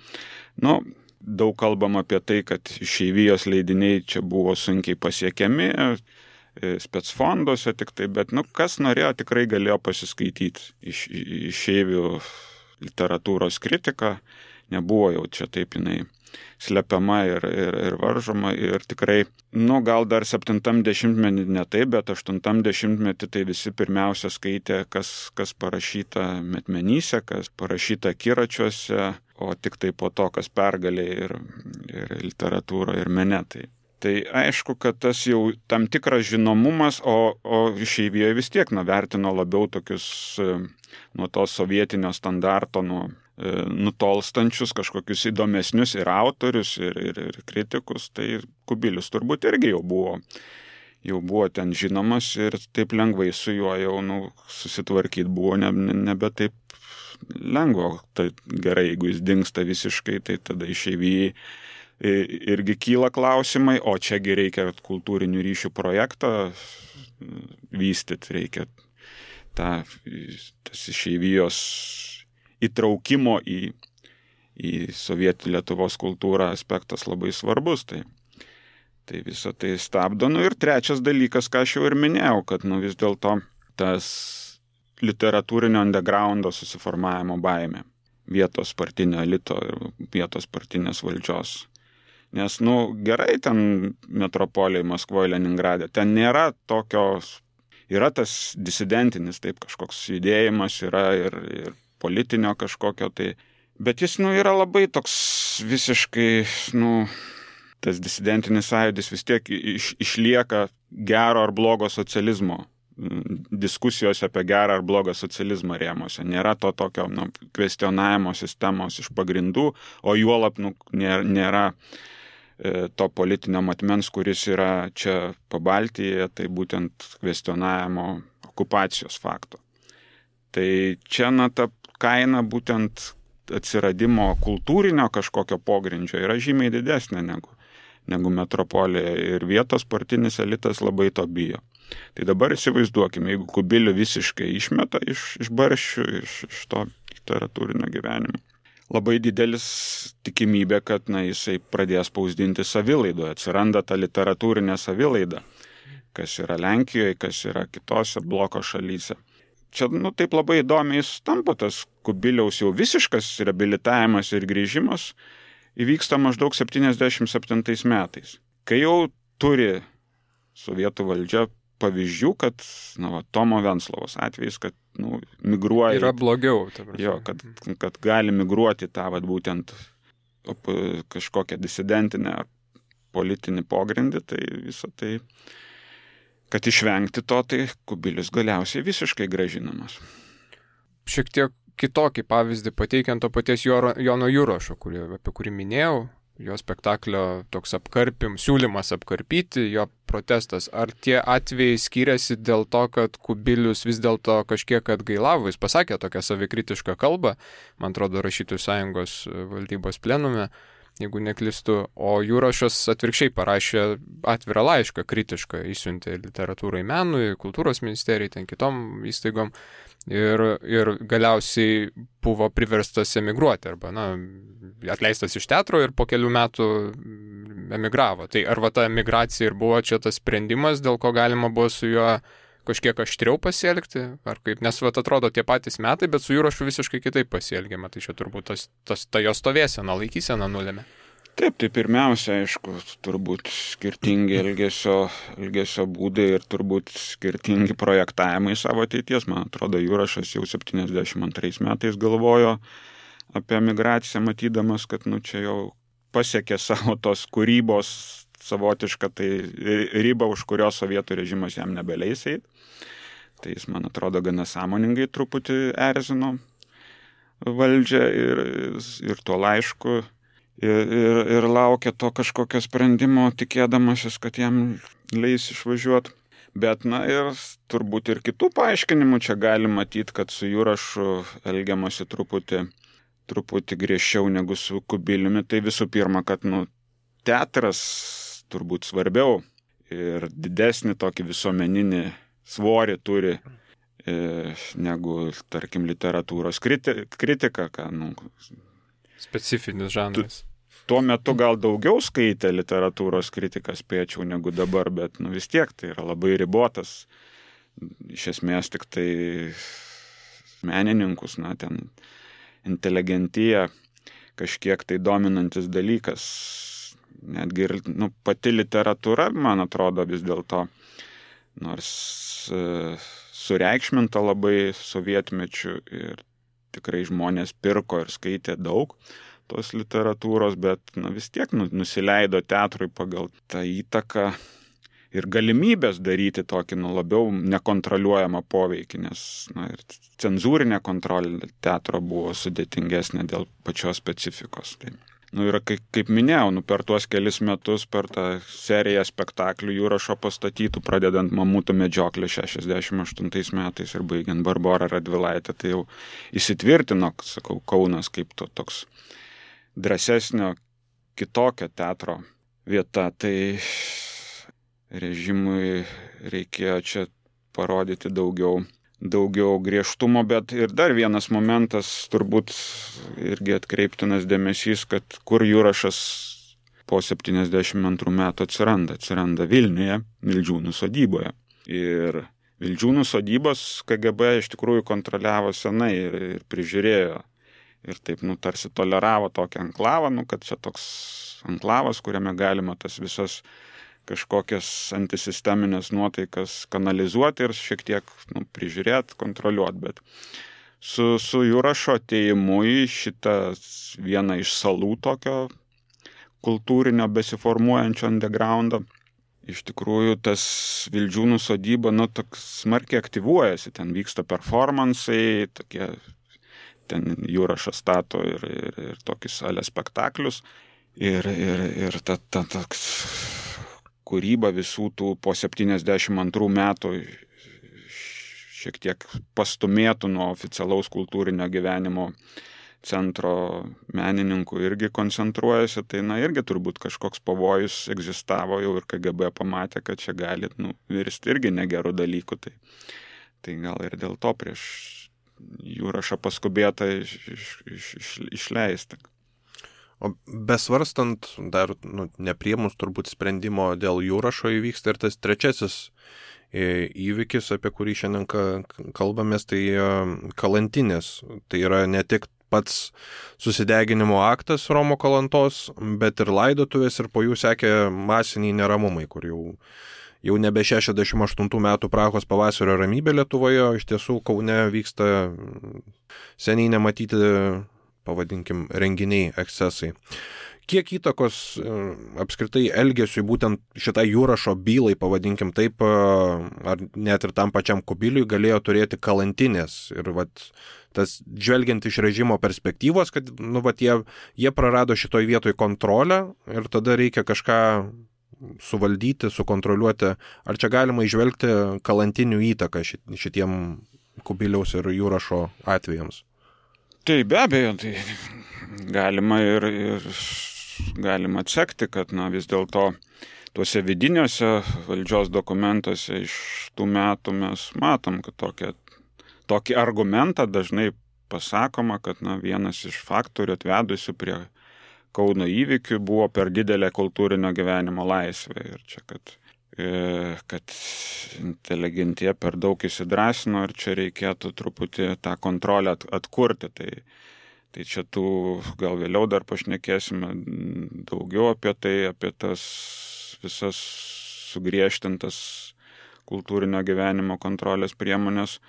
daug kalbam apie tai, kad išeivijos leidiniai čia buvo sunkiai pasiekiami, specfonduose tik tai, bet, kas norėjo, tikrai galėjo pasiskaityti išeivių literatūros kritiką, nebuvo jau čia taip jinai slepiama ir varžoma ir tikrai, gal dar 70-metį ne taip, bet 80-metį tai visi pirmiausia skaitė, kas parašyta metmenyse, kas parašyta akiračiuose, o tik tai po to, kas pergalė ir literatūra ir mene. Tai aišku, kad tas jau tam tikras žinomumas, o išeivijoje vis tiek vertino labiau tokius nuo to sovietinio standarto, nutolstančius kažkokius įdomesnius ir autorius, ir kritikus, tai Kubilius turbūt irgi jau buvo ten žinomas ir taip lengvai su juo jau susitvarkyti buvo nebe taip lengva. Tai gerai, jeigu jis dingsta visiškai, tai tada išeivijai irgi kyla klausimai, o čiagi reikia kultūrinių ryšių projektą vystyti, reikia tas išeivijos įtraukimo į sovietų Lietuvos kultūrą aspektas labai svarbus. Tai visą tai stabdo. Ir trečias dalykas, ką aš jau ir minėjau, kad vis dėlto tas literatūrinio undergroundo susiformavimo baimė vietos partinio elito ir vietos partinės valdžios. Nes, gerai ten metropolijai Maskvoje, Leningrade, ten nėra tokios, yra tas disidentinis, taip kažkoks judėjimas, yra ir politinio kažkokio, bet jis, yra labai toks visiškai, tas disidentinis sąjūdis vis tiek išlieka gero ar blogo socializmo, diskusijos apie gerą ar blogą socializmą rėmose. Nėra to tokio, kvestionavimo sistemos iš pagrindų, o juolab, nėra to politinio matmens, kuris yra čia Pabaltyje, tai būtent kvestionavimo okupacijos fakto. Tai čia, ta kaina būtent atsiradimo kultūrinio kažkokio pogrindžio yra žymiai didesnė negu metropolija ir vietos partinis elitas labai to bijo. Tai dabar įsivaizduokime, jeigu Kubilių visiškai išmeta iš barščių, iš to literatūrinio gyvenimo. Labai didelis tikimybė, kad jisai pradės spausdinti savilaidoje, atsiranda ta literatūrinė savilaida, kas yra Lenkijoje, kas yra kitose bloko šalyse. Čia, taip labai įdomiai tampa tas Kubiliaus jau visiškas reabilitavimas ir grįžimas įvyksta maždaug 77 metais, kai jau turi sovietų valdžia pavyzdžių, kad, Tomo Venclovos atvejais, kad, migruoja. Yra blogiau. Jo, kad gali migruoti tą, būtent kažkokią disidentinę politinį pogrindį, tai visą tai, kad išvengti to, tai Kubilius galiausiai visiškai grąžinamas. Šiek tiek kitokį pavyzdį pateikiant to paties Jono Jurašo, apie kurį minėjau, jo spektaklio toks siūlymas apkarpyti, jo protestas. Ar tie atvejai skiriasi dėl to, kad Kubilius vis dėlto kažkiek atgailavo, jis pasakė tokią savikritišką kalbą, man atrodo, Rašytojų sąjungos valdybos plenume, jeigu neklystu, o Jurašas atvirkščiai parašė atvirą laišką kritišką, išsiuntė literatūrai, menui, kultūros ministerijai, ten kitom įstaigom. Ir galiausiai buvo priverstas emigruoti arba atleistas iš teatro ir po kelių metų emigravo. Tai ar ta emigracija ir buvo čia tas sprendimas, dėl ko galima buvo su juo kažkiek aštriau pasielgti, ar kaip, nes atrodo tie patys metai, bet su Jurašu visiškai kitaip pasielgiama, tai čia turbūt ta jo stovėsena, laikysena nulėmė. Taip, tai pirmiausia, aišku, turbūt skirtingi elgesio būdai ir turbūt skirtingi projektavimai savo ateities. Man atrodo, Jurašas jau 72 metais galvojo apie emigraciją, matydamas, kad čia jau pasiekė savo tos kūrybos savotišką tai ribą, už kurios sovietų režimas jam nebeleis eit. Tai jis, man atrodo, gana sąmoningai truputį erzino valdžią ir tuo laišku ir laukia to kažkokio sprendimo, tikėdamasis, kad jam leis išvažiuoti. Bet, ir turbūt ir kitų paaiškinimų čia gali matyti, kad su Jurašu elgiamasi truputį griežčiau negu su Kubiliumi. Tai visų pirma, kad, teatras turbūt svarbiau ir didesnį tokį visuomeninį svorį turi negu, tarkim, literatūros kritika, specifinis žanras. Tuo metu gal daugiau skaitė literatūros kritiką, spėčiau, negu dabar, bet vis tiek tai yra labai ribotas. Iš esmės tik tai menininkus, ten inteligentija kažkiek tai dominantis dalykas. Netgi ir pati literatūra, man atrodo, vis dėlto, nors sureikšminta labai sovietmečiu ir tikrai žmonės pirko ir skaitė daug tos literatūros, bet vis tiek nusileido teatrui pagal tą įtaką ir galimybės daryti tokį labiau nekontroliuojamą poveikį, nes ir cenzūrinė kontrolė teatro buvo sudėtingesnė dėl pačios specifikos. Tai, ir kaip minėjau, per tuos kelis metus, per tą seriją spektaklių Jurašo pastatytų, pradedant Mamutų medžioklę 68 metais ir baigiant Barborą Radvilaitę, tai jau įsitvirtino, Kaunas kaip toks drąsesnio, kitokio teatro vieta. Tai režimui reikėjo čia parodyti daugiau griežtumo, bet ir dar vienas momentas, turbūt irgi atkreiptinas dėmesys, kad kur Jurašas po 72 metų atsiranda Vilniuje, Vildžiūnų sodyboje. Ir Vildžiūnų sodybos KGB iš tikrųjų kontroliavo senai ir prižiūrėjo. Ir taip, tarsi toleravo tokį anklavą, kad čia toks anklavas, kuriame galima tas visas kažkokias antisisteminės nuotaikas kanalizuoti ir šiek tiek prižiūrėti, kontroliuoti. Bet su Jurašo atėjimu į šitą vieną iš salų tokio kultūrinio besiformuojančio undergroundo, iš tikrųjų tas Vildžiūnų sodyba toks smarkiai aktyvuojasi, ten vyksta performansai, tokie, ten Jurašas stato ir tokį salę spektaklius ir ta toks kūryba visų tų po 72 metų šiek tiek pastumėtų nuo oficialaus kultūrinio gyvenimo centro menininkų irgi koncentruojasi, tai irgi turbūt kažkoks pavojus egzistavo jau ir KGB pamatė, kad čia gali virsti irgi negerų dalykų. Tai gal ir dėl to prieš Jurašą paskubėta išleisti. O besvarstant, dar nepriemus turbūt sprendimo dėl Jurašo įvyksta ir tas trečiasis įvykis, apie kurį šiandien kalbamės, tai Kalantinės. Tai yra ne tik pats susideginimo aktas Romo Kalantos, bet ir laidotuvės ir po jų sekė masiniai neramumai, kur jau nebe 68 metų Prahos pavasario ramybė Lietuvoje, iš tiesų Kaune vyksta seniai nematyti, pavadinkim, renginiai, ekscesai. Kiek įtakos apskritai elgesiui būtent šitai Jurašo bylai, pavadinkim taip, ar net ir tam pačiam Kubiliui galėjo turėti Kalantinės? Ir tas žvelgiant iš režimo perspektyvos, kad jie prarado šitoj vietoj kontrolę ir tada reikia kažką suvaldyti, sukontroliuoti. Ar čia galima įžvelgti Kalantinių įtaką šitiem Kubiliaus ir Jurašo atvejams? Tai be abejo, tai galima ir galima atsekti, kad vis dėlto tuose vidiniuose valdžios dokumentuose iš tų metų mes matom, kad tokį argumentą dažnai pasakoma, kad vienas iš faktorių atvedusių prie Kauno įvykių buvo per didelė kultūrinio gyvenimo laisvė. Ir čia, kad inteligentija per daug įsidrąsino ir čia reikėtų truputį tą kontrolę atkurti. Tai čia gal vėliau dar pašnekėsime daugiau apie tai, apie tas visas sugriežtintas kultūrinio gyvenimo kontrolės priemonės.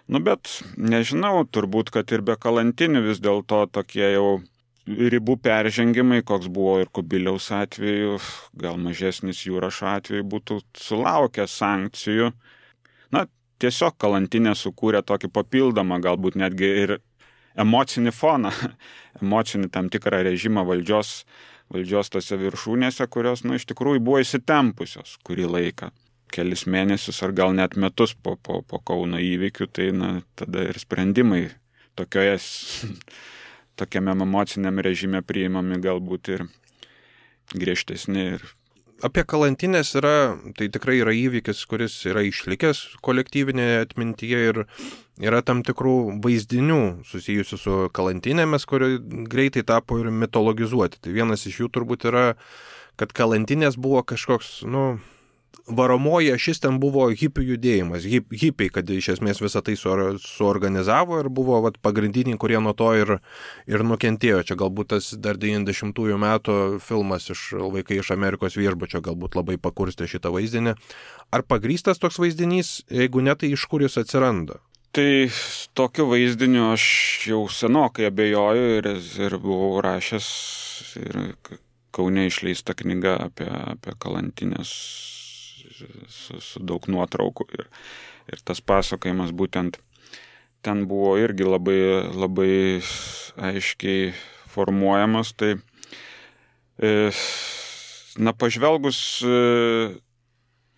Bet nežinau, turbūt, kad ir be kalantinių vis dėlto tokie jau ribų peržengimai, koks buvo ir Kubiliaus atveju, gal mažesnis Jurašo atveju, būtų sulaukę sankcijų. Tiesiog kalantinė sukūrė tokį papildomą, galbūt netgi ir emocinį foną, emocinį tam tikrą režimą valdžios tose viršūnėse, kurios, iš tikrųjų buvo įsitempusios kurį laiką. Kelis mėnesius ar gal net metus po Kauno įvykių, tai tada ir sprendimai tokiame emociniam režime priimami galbūt ir griežtesni. Apie kalantinės tai tikrai yra įvykis, kuris yra išlikęs kolektyvinėje atmintyje ir yra tam tikrų vaizdinių susijusių su kalantinėmis, kurie greitai tapo ir mitologizuoti. Tai vienas iš jų turbūt yra, kad kalantinės buvo kažkoks, varomoji ašis ten buvo hipių judėjimas, hipiai, kad iš esmės visą tai suorganizavo ir buvo pagrindiniai, kurie nuo to ir nukentėjo. Čia galbūt tas dar 90-ųjų metų filmas Vaikai iš Amerikos viešbučio galbūt labai pakurstė šitą vaizdinį. Ar pagrįstas toks vaizdinys, jeigu ne, tai iš kur jis atsiranda? Tai tokiu vaizdiniu aš jau senokai abejoju ir buvau rašęs ir Kaune išleista knyga apie kalantinės su daug nuotraukų ir tas pasakojimas būtent ten buvo irgi labai, labai aiškiai formuojamas. Tai pažvelgus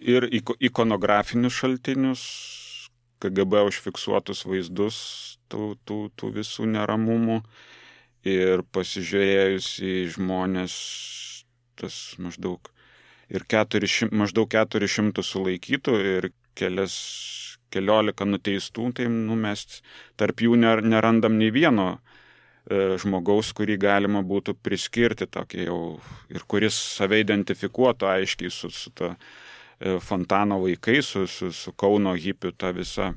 ir ikonografinius šaltinius, KGB užfiksuotus vaizdus tų visų neramumų ir pasižiūrėjus į žmonės, tas maždaug 400 sulaikytų ir keliolika nuteistų, tai mes tarp jų nerandam nei vieno žmogaus, kurį galima būtų priskirti tokį jau ir kuris save identifikuotų aiškiai su ta Fontano vaikai, su Kauno hipių ta visa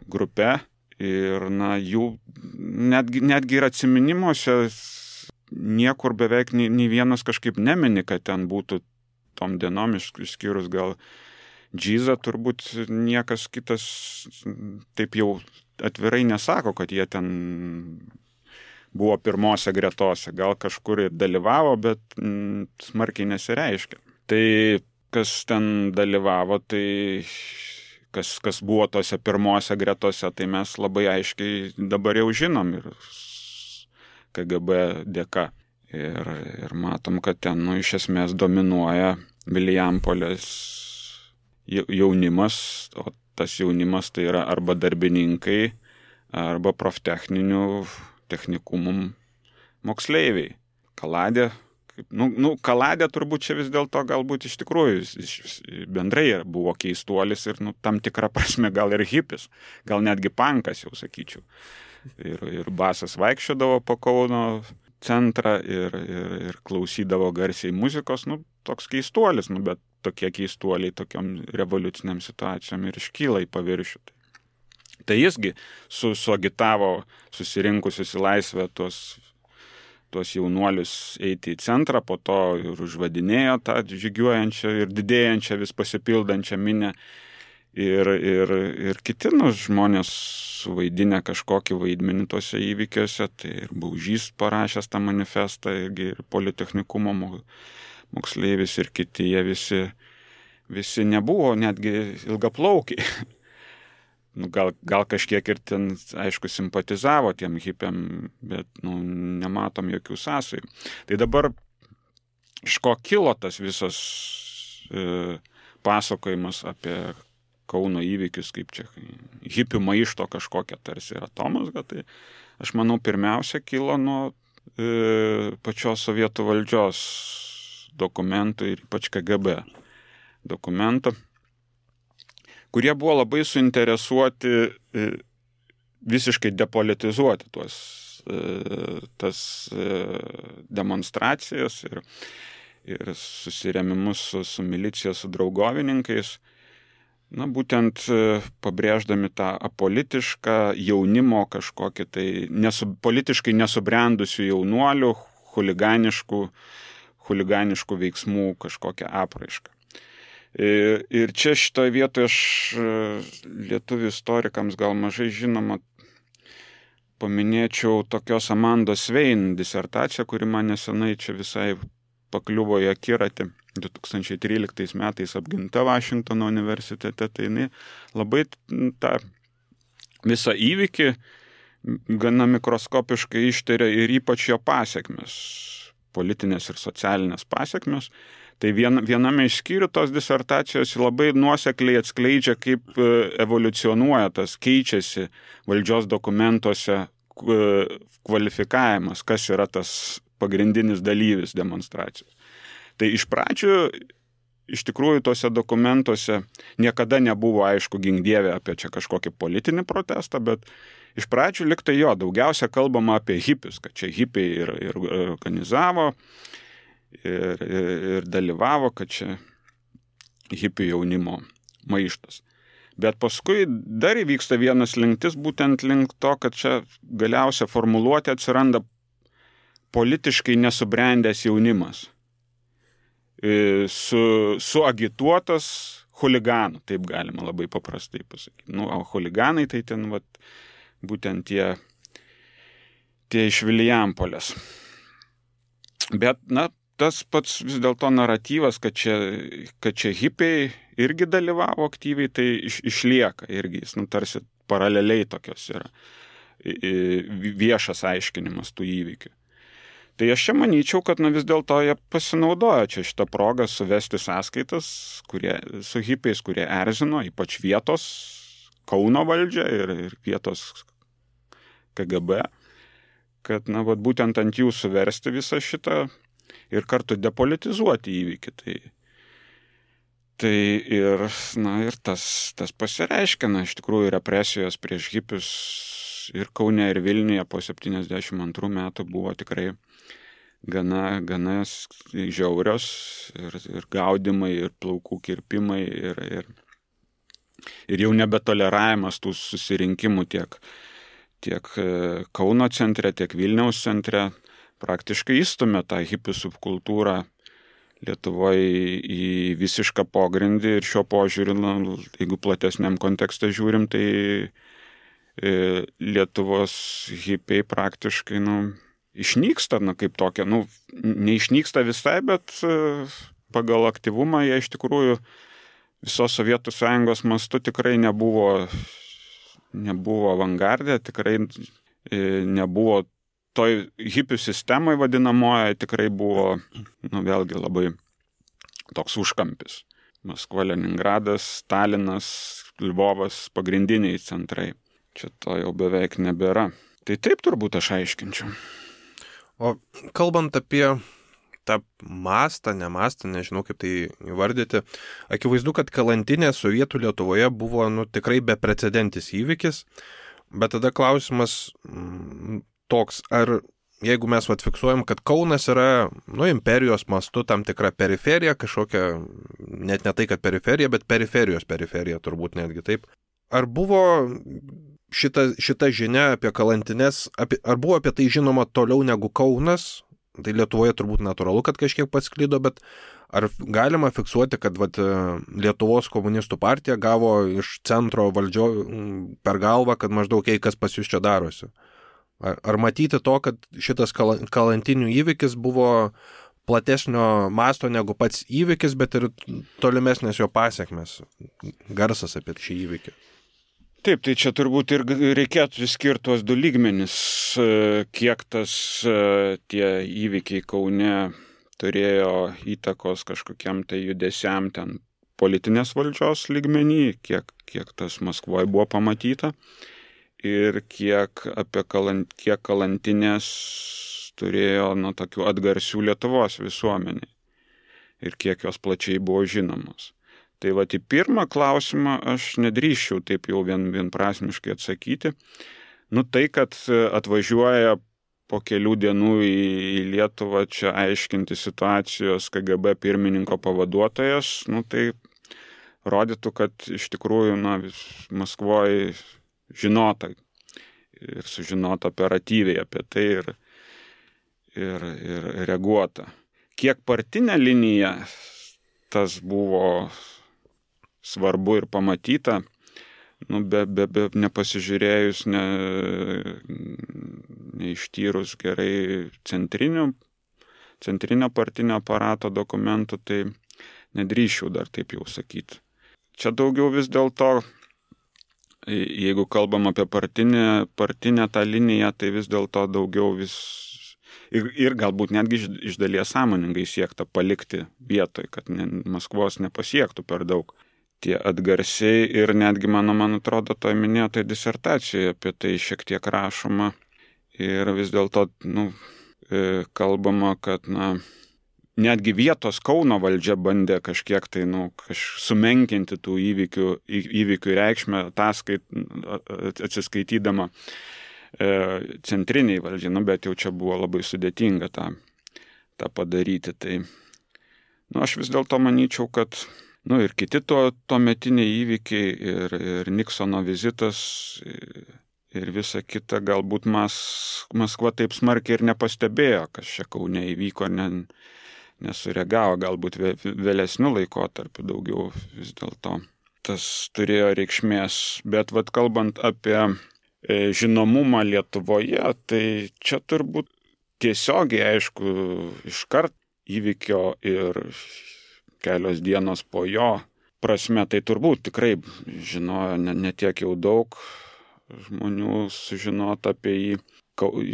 grupe. Ir jų netgi ir atsiminimuose niekur beveik nei vienas kažkaip nemini, kad ten būtų tom dienom, išskyrus gal Džizą, turbūt niekas kitas taip jau atvirai nesako, kad jie ten buvo pirmose gretose. Gal kažkur ir dalyvavo, bet smarkiai nesireiškia. Tai kas ten dalyvavo, tai kas buvo tose pirmose gretose, tai mes labai aiškiai dabar jau žinom ir KGB dėka. Ir matom, kad ten iš esmės dominuoja Vilijampolės jaunimas, o tas jaunimas tai yra arba darbininkai, arba proftechninių technikumų moksleiviai. Kaladė, Kaladė turbūt čia vis dėlto galbūt iš tikrųjų bendrai buvo keistuolis ir tam tikrą prasme gal ir hipis, gal netgi pankas jau sakyčiau. Ir basas vaikščiodavo po Kauno centrą ir klausydavo garsiai muzikos, toks keistuolis, bet tokie keistuoliai tokiom revoliuciniam situacijom ir iškyla į paviršių. Tai jisgi suagitavo susirinkusius į laisvę tuos jaunuolius eiti į centrą, po to ir užvadinėjo tą žygiuojančią ir didėjančią vis pasipildančią minę. Ir kiti žmonės suvaidinę kažkokį vaidmenį tuose įvykiuose, tai ir Baužys parašęs tą manifestą, ir Politechnikumo moksleivis ir kiti, jie visi nebuvo netgi ilgaplaukiai. Gal kažkiek ir ten, aišku, simpatizavo tiem hipiam, bet nematom jokių sąsajų. Tai dabar iš ko kilo tas visas pasakojimas apie Kauno įvykius, kaip čia hipių maišto kažkokia tarsi atomazga, tai aš manau pirmiausia kilo nuo pačios sovietų valdžios dokumentų ir ypač KGB dokumentų, kurie buvo labai suinteresuoti visiškai depolitizuoti tas demonstracijas ir susirėmimus su milicija, su draugovininkais. būtent pabrėždami tą apolitišką jaunimo kažkokį tai politiškai nesubrendusių jaunuolių, chuliganiškų veiksmų kažkokią apraišką. Ir čia šitoje vietoje aš lietuvių istorikams gal mažai žinoma paminėčiau tokios Amandos Svein disertaciją, kuri man nesenai čia visai pakliuvo į akiratį. 2013 metais apginta Vašingtono universitete, tai jinai labai tą visą įvykį gana mikroskopiškai ištiria ir ypač jo pasiekmes, politinės ir socialinės pasiekmes. Tai viename iš skyrių tos disertacijos labai nuosekliai atskleidžia, kaip evoliucionuoja tas, keičiasi valdžios dokumentuose kvalifikavimas, kas yra tas pagrindinis dalyvis demonstracijos. Tai iš pradžių, iš tikrųjų, tose dokumentuose niekada nebuvo aišku gink dieve apie čia kažkokį politinį protestą, bet iš pradžių liktai daugiausia kalbama apie hipius, kad čia hipiai ir organizavo ir dalyvavo, kad čia hipių jaunimo maištas. Bet paskui dar įvyksta vienas linktis, būtent link to, kad čia galiausia formuluotė atsiranda politiškai nesubrendęs jaunimas. Suagituotas chuliganų, taip galima labai paprastai pasakyti. O chuliganai tai ten būtent tie iš Vilijampolės. Bet, tas pats vis dėlto naratyvas, kad čia hipiai irgi dalyvavo aktyviai, tai išlieka irgi, jis tarsi paraleliai tokios yra viešas aiškinimas tų įvykių. Tai aš čia manyčiau, kad vis dėlto jie pasinaudojo čia šitą progą suvesti sąskaitas su hipiais, kurie erzino, ypač vietos Kauno valdžią ir vietos KGB, kad būtent ant jų suversti visą šitą ir kartu depolitizuoti įvykį. Tai ir tas pasireiškia, iš tikrųjų represijos prieš hipius ir Kaune ir Vilniuje po 72 metų buvo tikrai gana žiaurios ir gaudimai, ir plaukų kirpimai, ir jau nebetoleravimas tų susirinkimų tiek Kauno centre, tiek Vilniaus centre praktiškai įstumė tą hipių subkultūrą Lietuvoje į visišką pogrindį ir šiuo požiūriu, jeigu platesniam kontekste žiūrim, tai Lietuvos hipiai praktiškai, išnyksta, kaip tokia, neišnyksta visai, bet pagal aktyvumą jie iš tikrųjų visos Sovietų Sąjungos mastu tikrai nebuvo avangardė, tikrai nebuvo toj hipių sistemoje vadinamoje, tikrai buvo, vėlgi labai toks užkampis. Maskva, Leningradas, Stalinas, Lvovas, pagrindiniai centrai. Čia to jau beveik nebėra. Tai taip turbūt aš aiškinčiau. O kalbant apie tą mastą, nežinau kaip tai įvardyti, akivaizdu, kad kalantinė Sovietų Lietuvoje buvo tikrai beprecedentis įvykis, bet tada klausimas toks, ar jeigu mes fiksuojam, kad Kaunas yra imperijos mastu tam tikra periferija, kažkokia, net ne tai, kad periferija, bet periferijos periferija, turbūt netgi taip. Ar buvo šita žinia apie kalantines, ar buvo apie tai žinoma toliau negu Kaunas? Tai Lietuvoje turbūt natūralu, kad kažkiek pasklido, bet ar galima fiksuoti, kad Lietuvos komunistų partija gavo iš centro valdžio per galvą, kad maždaug kas pas jūs čia darosi? Ar matyti to, kad šitas kalantinių įvykis buvo platesnio masto negu pats įvykis, bet ir tolimesnės jo pasiekmes, garsas apie šį įvykį? Taip, tai čia turbūt ir reikėtų skirti tuos du lygmenis, kiek tie įvykiai Kaune turėjo įtakos kažkokiam tai judesiam ten politinės valdžios lygmenį, kiek tas Maskvoje buvo pamatyta ir kiek kalantinės turėjo tokių atgarsių Lietuvos visuomeniai ir kiek jos plačiai buvo žinomos. Tai į pirmą klausimą aš nedrįsčiau taip jau vienprasmiškai atsakyti. Tai, kad atvažiuoja po kelių dienų į Lietuvą čia aiškinti situacijos KGB pirmininko pavaduotojas, tai rodytų, kad iš tikrųjų Maskvoje žinota ir sužinota operatyviai apie tai ir reaguota. Kiek partinė linija tas buvo svarbu ir pamatyta, be nepasižiūrėjus, neištyrus gerai centrinio partinio aparato dokumentų, tai nedrįščiau dar taip jau sakyti. Čia daugiau vis dėlto, jeigu kalbam apie partinę tą liniją, tai vis dėlto daugiau ir galbūt netgi iš dalies sąmoningai siekta palikti vietoj, kad Maskvos nepasiektų per daug tie atgarsiai ir netgi man atrodo, to minėtoj disertacijoje apie tai šiek tiek rašoma ir vis dėlto kalbama, kad netgi vietos Kauno valdžia bandė kažkiek tai sumenkinti tų įvykių reikšmę, atsiskaitydama centriniai valdžiai, bet jau čia buvo labai sudėtinga tą padaryti. Tai aš vis dėlto manyčiau, kad ir kiti tuometiniai įvykiai ir Niksono vizitas ir visa kita, galbūt Maskva taip smarkiai ir nepastebėjo, kas čia Kaune įvyko, nesureagavo, galbūt vėlesniu laikotarpiu daugiau vis dėlto tas turėjo reikšmės. Bet kalbant apie žinomumą Lietuvoje, tai čia turbūt tiesiogiai, aišku, iškart įvykio ir kelios dienos po jo prasme, tai turbūt tikrai žinojo ne tiek jau daug žmonių sužinota apie jį,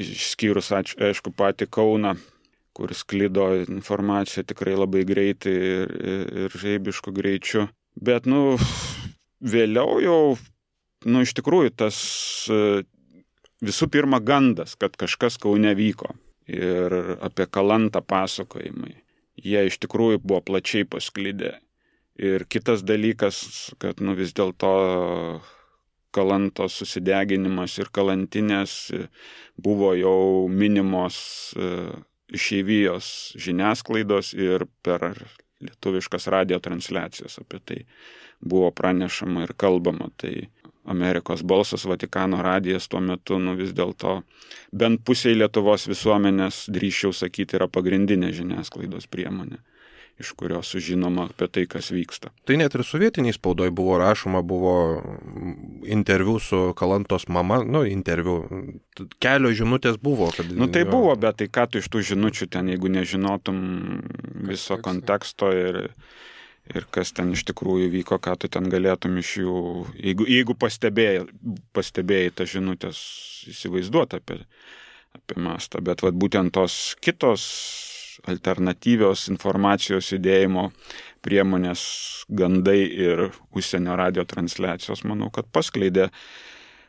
išskyrus, aišku, patį Kauną, kur sklido informacija tikrai labai greitai ir žaibišku greičiu. Bet, vėliau jau, iš tikrųjų, tas visų pirma gandas, kad kažkas Kaune vyko ir apie Kalantą pasakojimai. Jie iš tikrųjų buvo plačiai pasklidę. Ir kitas dalykas, kad vis dėlto Kalantos susideginimas ir kalantinės buvo jau minimos išeivijos žiniasklaidos ir per lietuviškas radijo transliacijas apie tai buvo pranešama ir kalbama. Tai Amerikos balsas, Vatikano radijas tuo metu, vis dėlto bent pusiai Lietuvos visuomenės, drįsčiau sakyti, yra pagrindinė žiniasklaidos priemonė, iš kurios sužinoma apie tai, kas vyksta. Tai net ir sovietiniai spaudoj buvo rašoma, buvo interviu su Kalantos mama, interviu, kelios žinutės buvo. Kad, tai buvo, bet tai ką tu iš tų žinučių ten, jeigu nežinotum viso konteksto ir kas ten iš tikrųjų vyko, ką tu ten galėtum iš jų, jeigu pastebėjai tą žinutės įsivaizduoti apie mastą. Bet būtent tos kitos alternatyvios informacijos judėjimo priemonės, gandai ir užsienio radio transliacijos, manau, kad paskleidė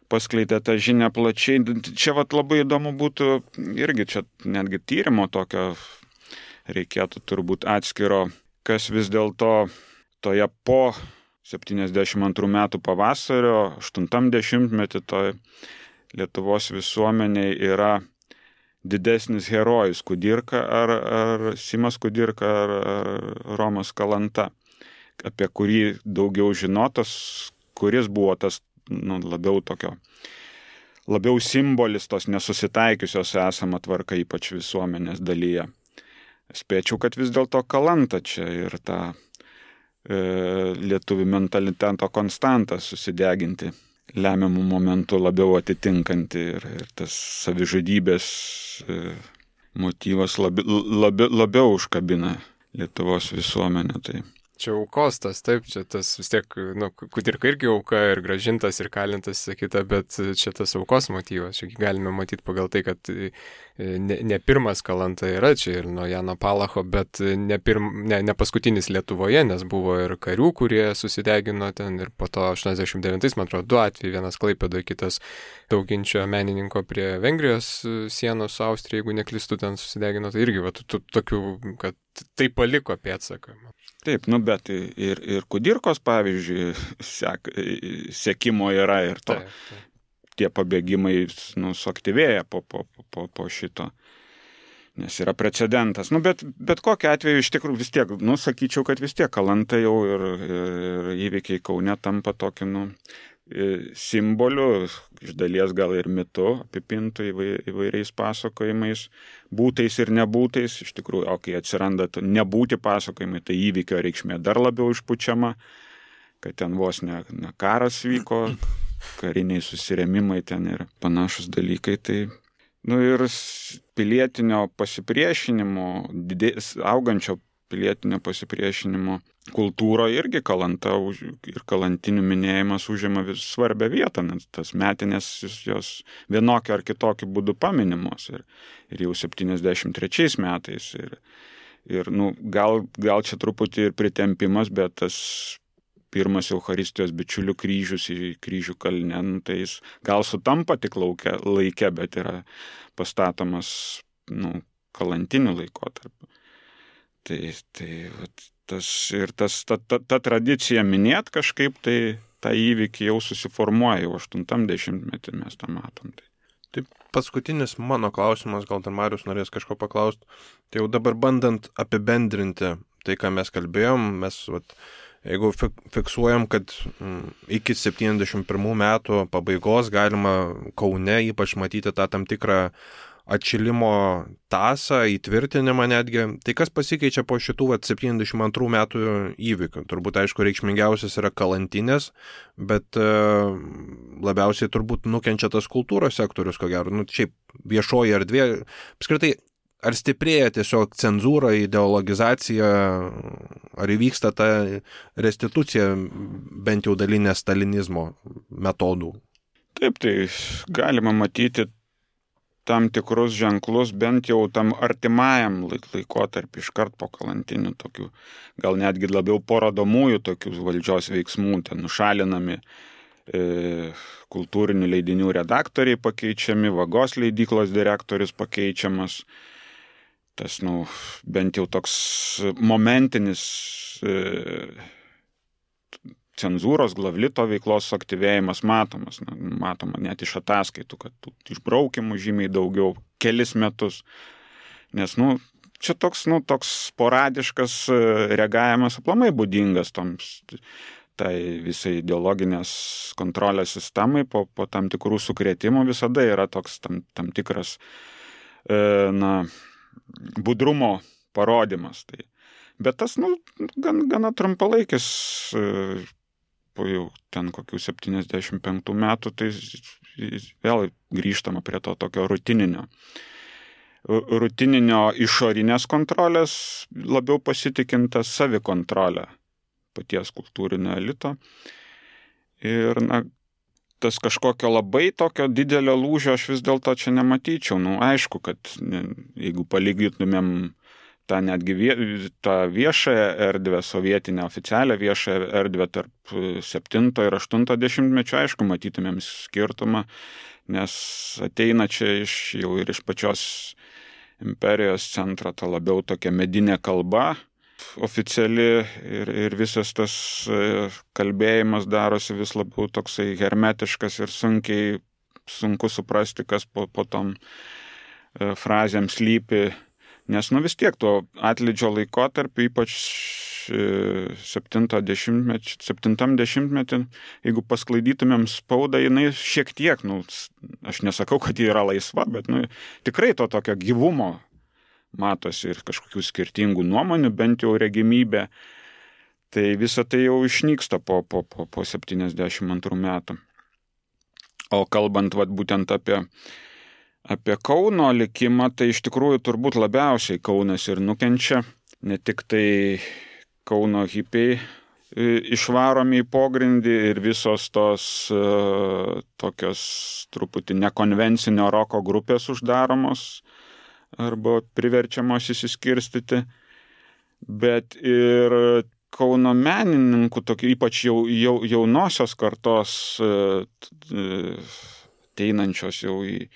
tą žinią plačiai. Čia labai įdomu būtų irgi, čia netgi tyrimo tokio reikėtų turbūt atskiro, kas vis dėlto toje po 72 metų pavasario, 80-metį toje Lietuvos visuomeniai yra didesnis herojus Kudirka ar Simas Kudirka ar Romas Kalanta, apie kurį daugiau žinotas, kuris buvo tas labiau simbolis tos nesusitaikiusios esama tvarka, ypač visuomenės dalyje. Spėčiau, kad vis dėlto Kalanta čia ir tą lietuvių mentaliteto konstantą susideginti lemiamų momentų labiau atitinkanti ir tas savižudybės motyvas labiau užkabina Lietuvos visuomenę. Tai. Čia aukos tas, taip, čia tas vis tiek, Kudirka irgi auka ir grąžintas ir kalintas, sakyta, bet čia tas aukos motyvas, čia galime matyti pagal tai, kad ne pirmas Kalanta yra čia ir nuo Jano Palacho, bet ne paskutinis Lietuvoje, nes buvo ir karių, kurie susidegino ten ir po to 89, man atrodo, 2 atvejai, vienas Klaipėdoje, kitas Dauginčio menininko prie Vengrijos sienos su Austrija, jeigu neklystu, ten susidegino, tai irgi tokių, kad tai paliko pėdsaką. Taip, bet ir Kudirkos, pavyzdžiui, sekimo yra ir to. Taip. Tie pabėgimai suaktyvėja po šito. nes yra precedentas. Nu, bet kokiu atveju iš tikrųjų vis tiek, nu, sakyčiau, kad vis tiek Kalanta jau ir įvykiai Kaune tampa tokiu, simboliu, iš dalies gal ir mitu, apipintų įvairiais pasakojimais, būtais ir nebūtais. Iš tikrųjų, o kai atsiranda nebūti pasakojimai, tai įvykio reikšmė dar labiau išpučiama, kad ten vos ne karas vyko, kariniai susirėmimai ten ir panašus dalykai. Tai, ir pilietinio pasipriešinimo, augančio pilietinio pasipriešinimo kultūro irgi Kalanta ir kalantinių minėjimas užima vis svarbią vietą, nes tas metinės jos vienokiu ar kitokiu būdu paminimos ir jau 73 metais ir gal čia truputį ir pritempimas, bet tas pirmas Eucharistijos bičiulių kryžius į Kryžių kalne, tai jis gal sutampa tik laike, bet yra pastatomas kalantiniu laikotarpiu. Ta tradicija minėt kažkaip, tai tą įvykį jau susiformuoja, jau 80-metį mes tą matom. Taip, paskutinis mano klausimas, gal dar Marius norės kažko paklausti. Tai jau dabar bandant apibendrinti tai, ką mes kalbėjom, jeigu fiksuojam, kad iki 71 metų pabaigos galima Kaune ypač matyti tą tam tikrą atšilimo tasą, įtvirtinimą netgi, tai kas pasikeičia po šitų 72 metų įvykių? Turbūt, aišku, reikšmingiausias yra Kalantinės, bet labiausiai turbūt nukenčia tas kultūros sektorius, ko gero. Šiaip viešoji erdvė, apskritai, ar stiprėja tiesiog cenzūra, ideologizacija, ar įvyksta ta restitucija bent jau dalinė stalinizmo metodų? Taip, tai galima matyti tam tikrus ženklus, bent jau tam artimajam laikotarpį iškart po kalantinių tokių, gal netgi labiau parodomųjų tokių valdžios veiksmų, ten nušalinami kultūrinių leidinių redaktoriai pakeičiami, Vagos leidyklos direktorius pakeičiamas. Tas, bent jau toks momentinis cenzūros, Glavlito veiklos suaktyvėjimas matomas. Matoma net iš ataskaitų, kad išbraukimų žymiai daugiau, kelis metus. Nes, čia toks sporadiškas reagavimas aplamai būdingas tai visai ideologinės kontrolės sistemai po tam tikrų sukrėtimų visada yra toks tam tikras budrumo parodymas. Bet tas, gana trumpalaikis, po jau ten kokių 75 metų, tai vėl grįžtama prie to tokio rutininio išorinės kontrolės, labiau pasitikintas savikontrolę paties kultūrinio elito. Ir, tas kažkokio labai tokio didelio lūžio aš vis dėlto čia nematyčiau. Aišku, kad jeigu palygintumėm tą netgi tą viešąją erdvę, sovietinę oficialią viešąją erdvę tarp 7 ir 80-mečio, aišku, matytumėm skirtumą, nes ateina čia jau ir iš pačios imperijos centro ta labiau tokia medinė kalba oficiali ir visas tas kalbėjimas darosi vis labiau toksai hermetiškas ir sunku suprasti, kas po tom frazėm slypi. Nes vis tiek tuo atlydžio laikotarpiu, ypač 70-metį, jeigu pasklaidytumėm spaudą, jinai šiek tiek, aš nesakau, kad ji yra laisva, bet tikrai to tokio gyvumo matosi ir kažkokių skirtingų nuomonių, bent jau regimybė. Tai visa tai jau išnyksta po 72 metų. O kalbant būtent apie Kauno likimą, tai iš tikrųjų turbūt labiausiai Kaunas ir nukenčia. Ne tik tai Kauno hipiai išvaromi į pogrindį ir visos tos tokios truputį nekonvencinio roko grupės uždaromos arba priverčiamos įsiskirstyti, bet ir Kauno menininkų, ypač jaunosios kartos ateinančios jau į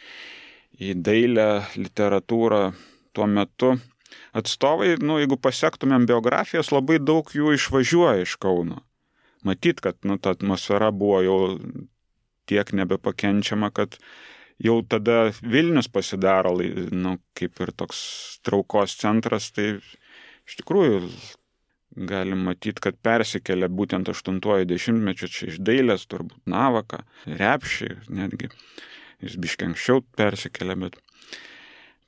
dailę, literatūrą tuo metu atstovai, jeigu pasektumėm biografijas, labai daug jų išvažiuoja iš Kauno. Matyt, kad ta atmosfera buvo jau tiek nebepakenčiama, kad jau tada Vilnius pasidaro, kaip ir toks traukos centras, tai iš tikrųjų galim matyti, kad persikelia būtent 80-mečio čia iš dailės, turbūt Navaką, Repšį, netgi jis biškiai anksčiau persikelia, bet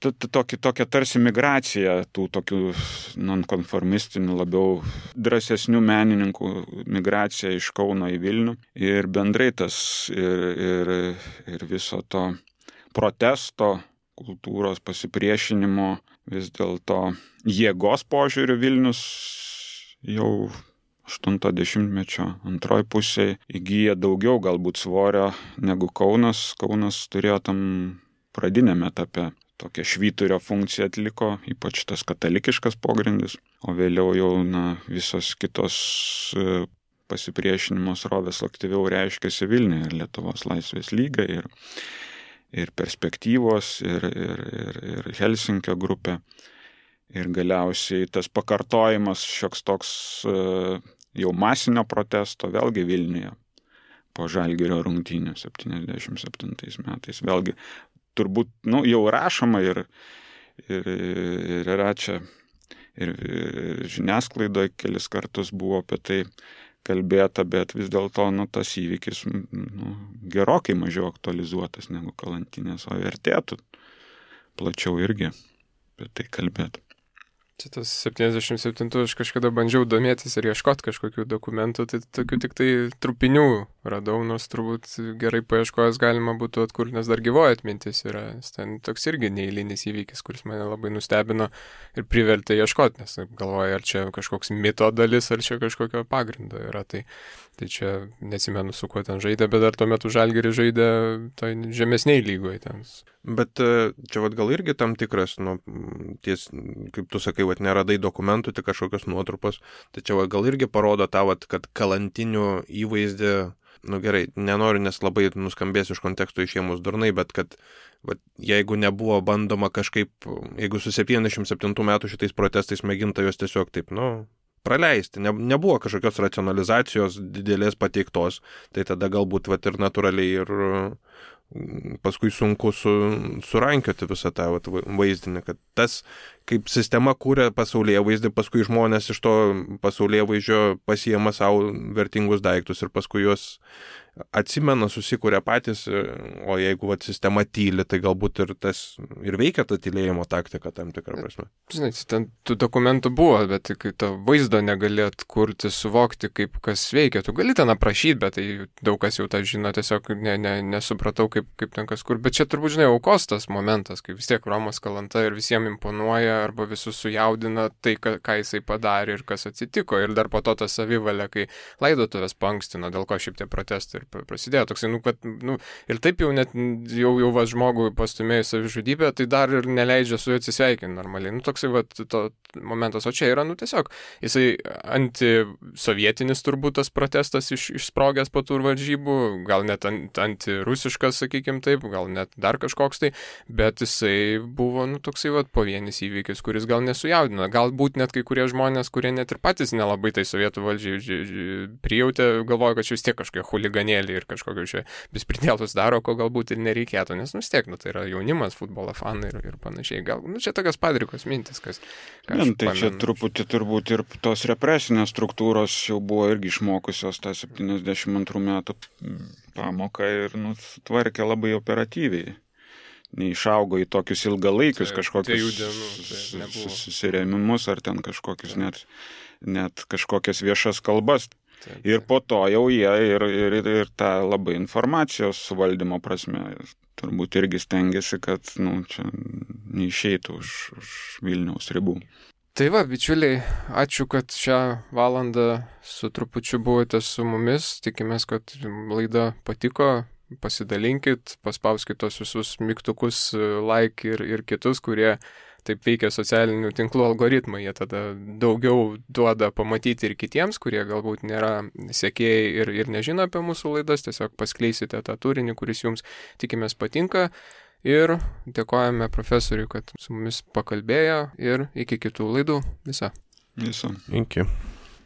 tokia tarsi migracija tų tokių nonkonformistinių, labiau drąsesnių menininkų migracija iš Kauno į Vilnių. Ir bendrai tas ir viso to protesto, kultūros pasipriešinimo, vis dėlto jėgos požiūrių Vilnius jau 80-mečio antroj pusėje įgyja daugiau galbūt svorio negu Kaunas. Kaunas turėjo tam pradiniame etape tokią švyturio funkciją atliko, ypač tas katalikiškas pogrindis, o vėliau jau visos kitos pasipriešinimo srovės aktyviau reiškėsi Vilniuje, ir Lietuvos laisvės lyga, ir perspektyvos, ir Helsinkio grupė, ir galiausiai tas pakartojimas šioks toks jau masinio protesto vėlgi Vilniuje po Žalgirio rungtynių 77 metais. Vėlgi turbūt jau rašoma ir yra čia ir žiniasklaidoje kelis kartus buvo apie tai kalbėta, bet vis dėlto tas įvykis gerokai mažiau aktualizuotas negu Kalantinės, o vertėtų plačiau irgi apie tai kalbėti. Tas 77 aš kažkada bandžiau domėtis ir ieškoti kažkokių dokumentų, tai tokių tik tai trupinių radau, nors turbūt gerai paieškojęs galima būtų atkurti, nes dar gyvoja atmintis yra. Ten toks irgi neeilinis įvykis, kuris mane labai nustebino ir privertė ieškoti, nes galvoju, ar čia kažkoks mito dalis, ar čia kažkokio pagrindo yra. Tai čia neatsimenu, su kuo ten žaidė, bet dar tuo metu Žalgiris žaidė toj žemesniai lygoje ten. Bet čia gal irgi tam tikras, kaip tu sakai, neradai dokumentų, tik kažkokios nuotrupos, tai čia gal irgi parodo tą, kad Kalantinių įvaizdį, gerai, nenoriu, nes labai nuskambės iš konteksto išėmus durnai, bet kad jeigu nebuvo bandoma kažkaip, jeigu su 77 metų šitais protestais mėginta jos tiesiog taip, praleisti, nebuvo kažkokios racionalizacijos didelės pateiktos, tai tada galbūt ir natūraliai ir paskui sunku surankioti visą tą vaizdinį, kad tas, kaip sistema kūrė pasaulėvaizdį, paskui žmonės iš to pasaulėvaizdžio pasiema savo vertingus daiktus ir paskui juos atsimena, susikūrė patys, o jeigu sistema tyli, tai galbūt ir veikia ta tylėjimo taktika tam tikrą prasme. Žinai, ten tų dokumentų buvo, bet kai to vaizdo negalėt kurti, suvokti, kaip kas veikia. Tu gali ten aprašyti, bet tai daug kas jau tą žino, tiesiog nesupratau, kaip ten kas kur. Bet čia turbūt, žinai, aukos tas momentas, kai vis tiek Romas Kalanta ir visiems imponuoja arba visus sujaudina tai, ką jisai padarė ir kas atsitiko. Ir dar po to ta savivalė, kai laidotuvės paankstino, dėl ko šiaip tie protestai ir prasidėjo toksai, ir taip jau net jau žmogui pastumėjus savižudybę, tai dar ir neleidžia su juo atsisveikinti normaliai. Toksai to momentas, o čia yra, tiesiog jisai antisovietinis turbūt tas protestas išsprogęs po tų varžybų, gal net antirusiškas, sakykim taip, gal net dar kažkoks tai, bet jisai buvo, toksai pavienis įvykis, kuris gal nesujaudino. Galbūt net kai kurie žmonės, kurie net ir patys nelabai tai sovietų valdžiai prijautė, galvoja, kad čia vis tiek kažkokie chuliganėliai ir kažkokius čia bespridėlus daro, ko galbūt ir nereikėtų, nes vis tiek, tai yra jaunimas, futbolo fanai ir panašiai. Gal, čia tokios padrikos mintis, ką aš tai čia truputį turbūt ir tos represinės struktūros jau buvo irgi išmokusios tą 72 metų pamoką ir tvarkė labai operatyviai. Neišaugo į tokius ilgalaikius kažkokius susirėmimus ar ten kažkokius net kažkokias viešas kalbas. Ir po to jau jie ir tą labai informacijos suvaldymo prasme turbūt irgi stengiasi, kad čia neišeitų už Vilniaus ribų. Tai bičiuliai, ačiū, kad šią valandą su trupučiu buvote su mumis. Tikimės, kad laida patiko. Pasidalinkit, paspauskit tos visus mygtukus, like ir kitus, kurie taip veikia socialinių tinklų algoritmai. Jie tada daugiau duoda pamatyti ir kitiems, kurie galbūt nėra sekėjai ir nežino apie mūsų laidas. Tiesiog paskleisite tą turinį, kuris jums, tikimės, patinka. Ir dėkojame profesoriui, kad su mumis pakalbėjo ir iki kitų laidų. Viso. Iki.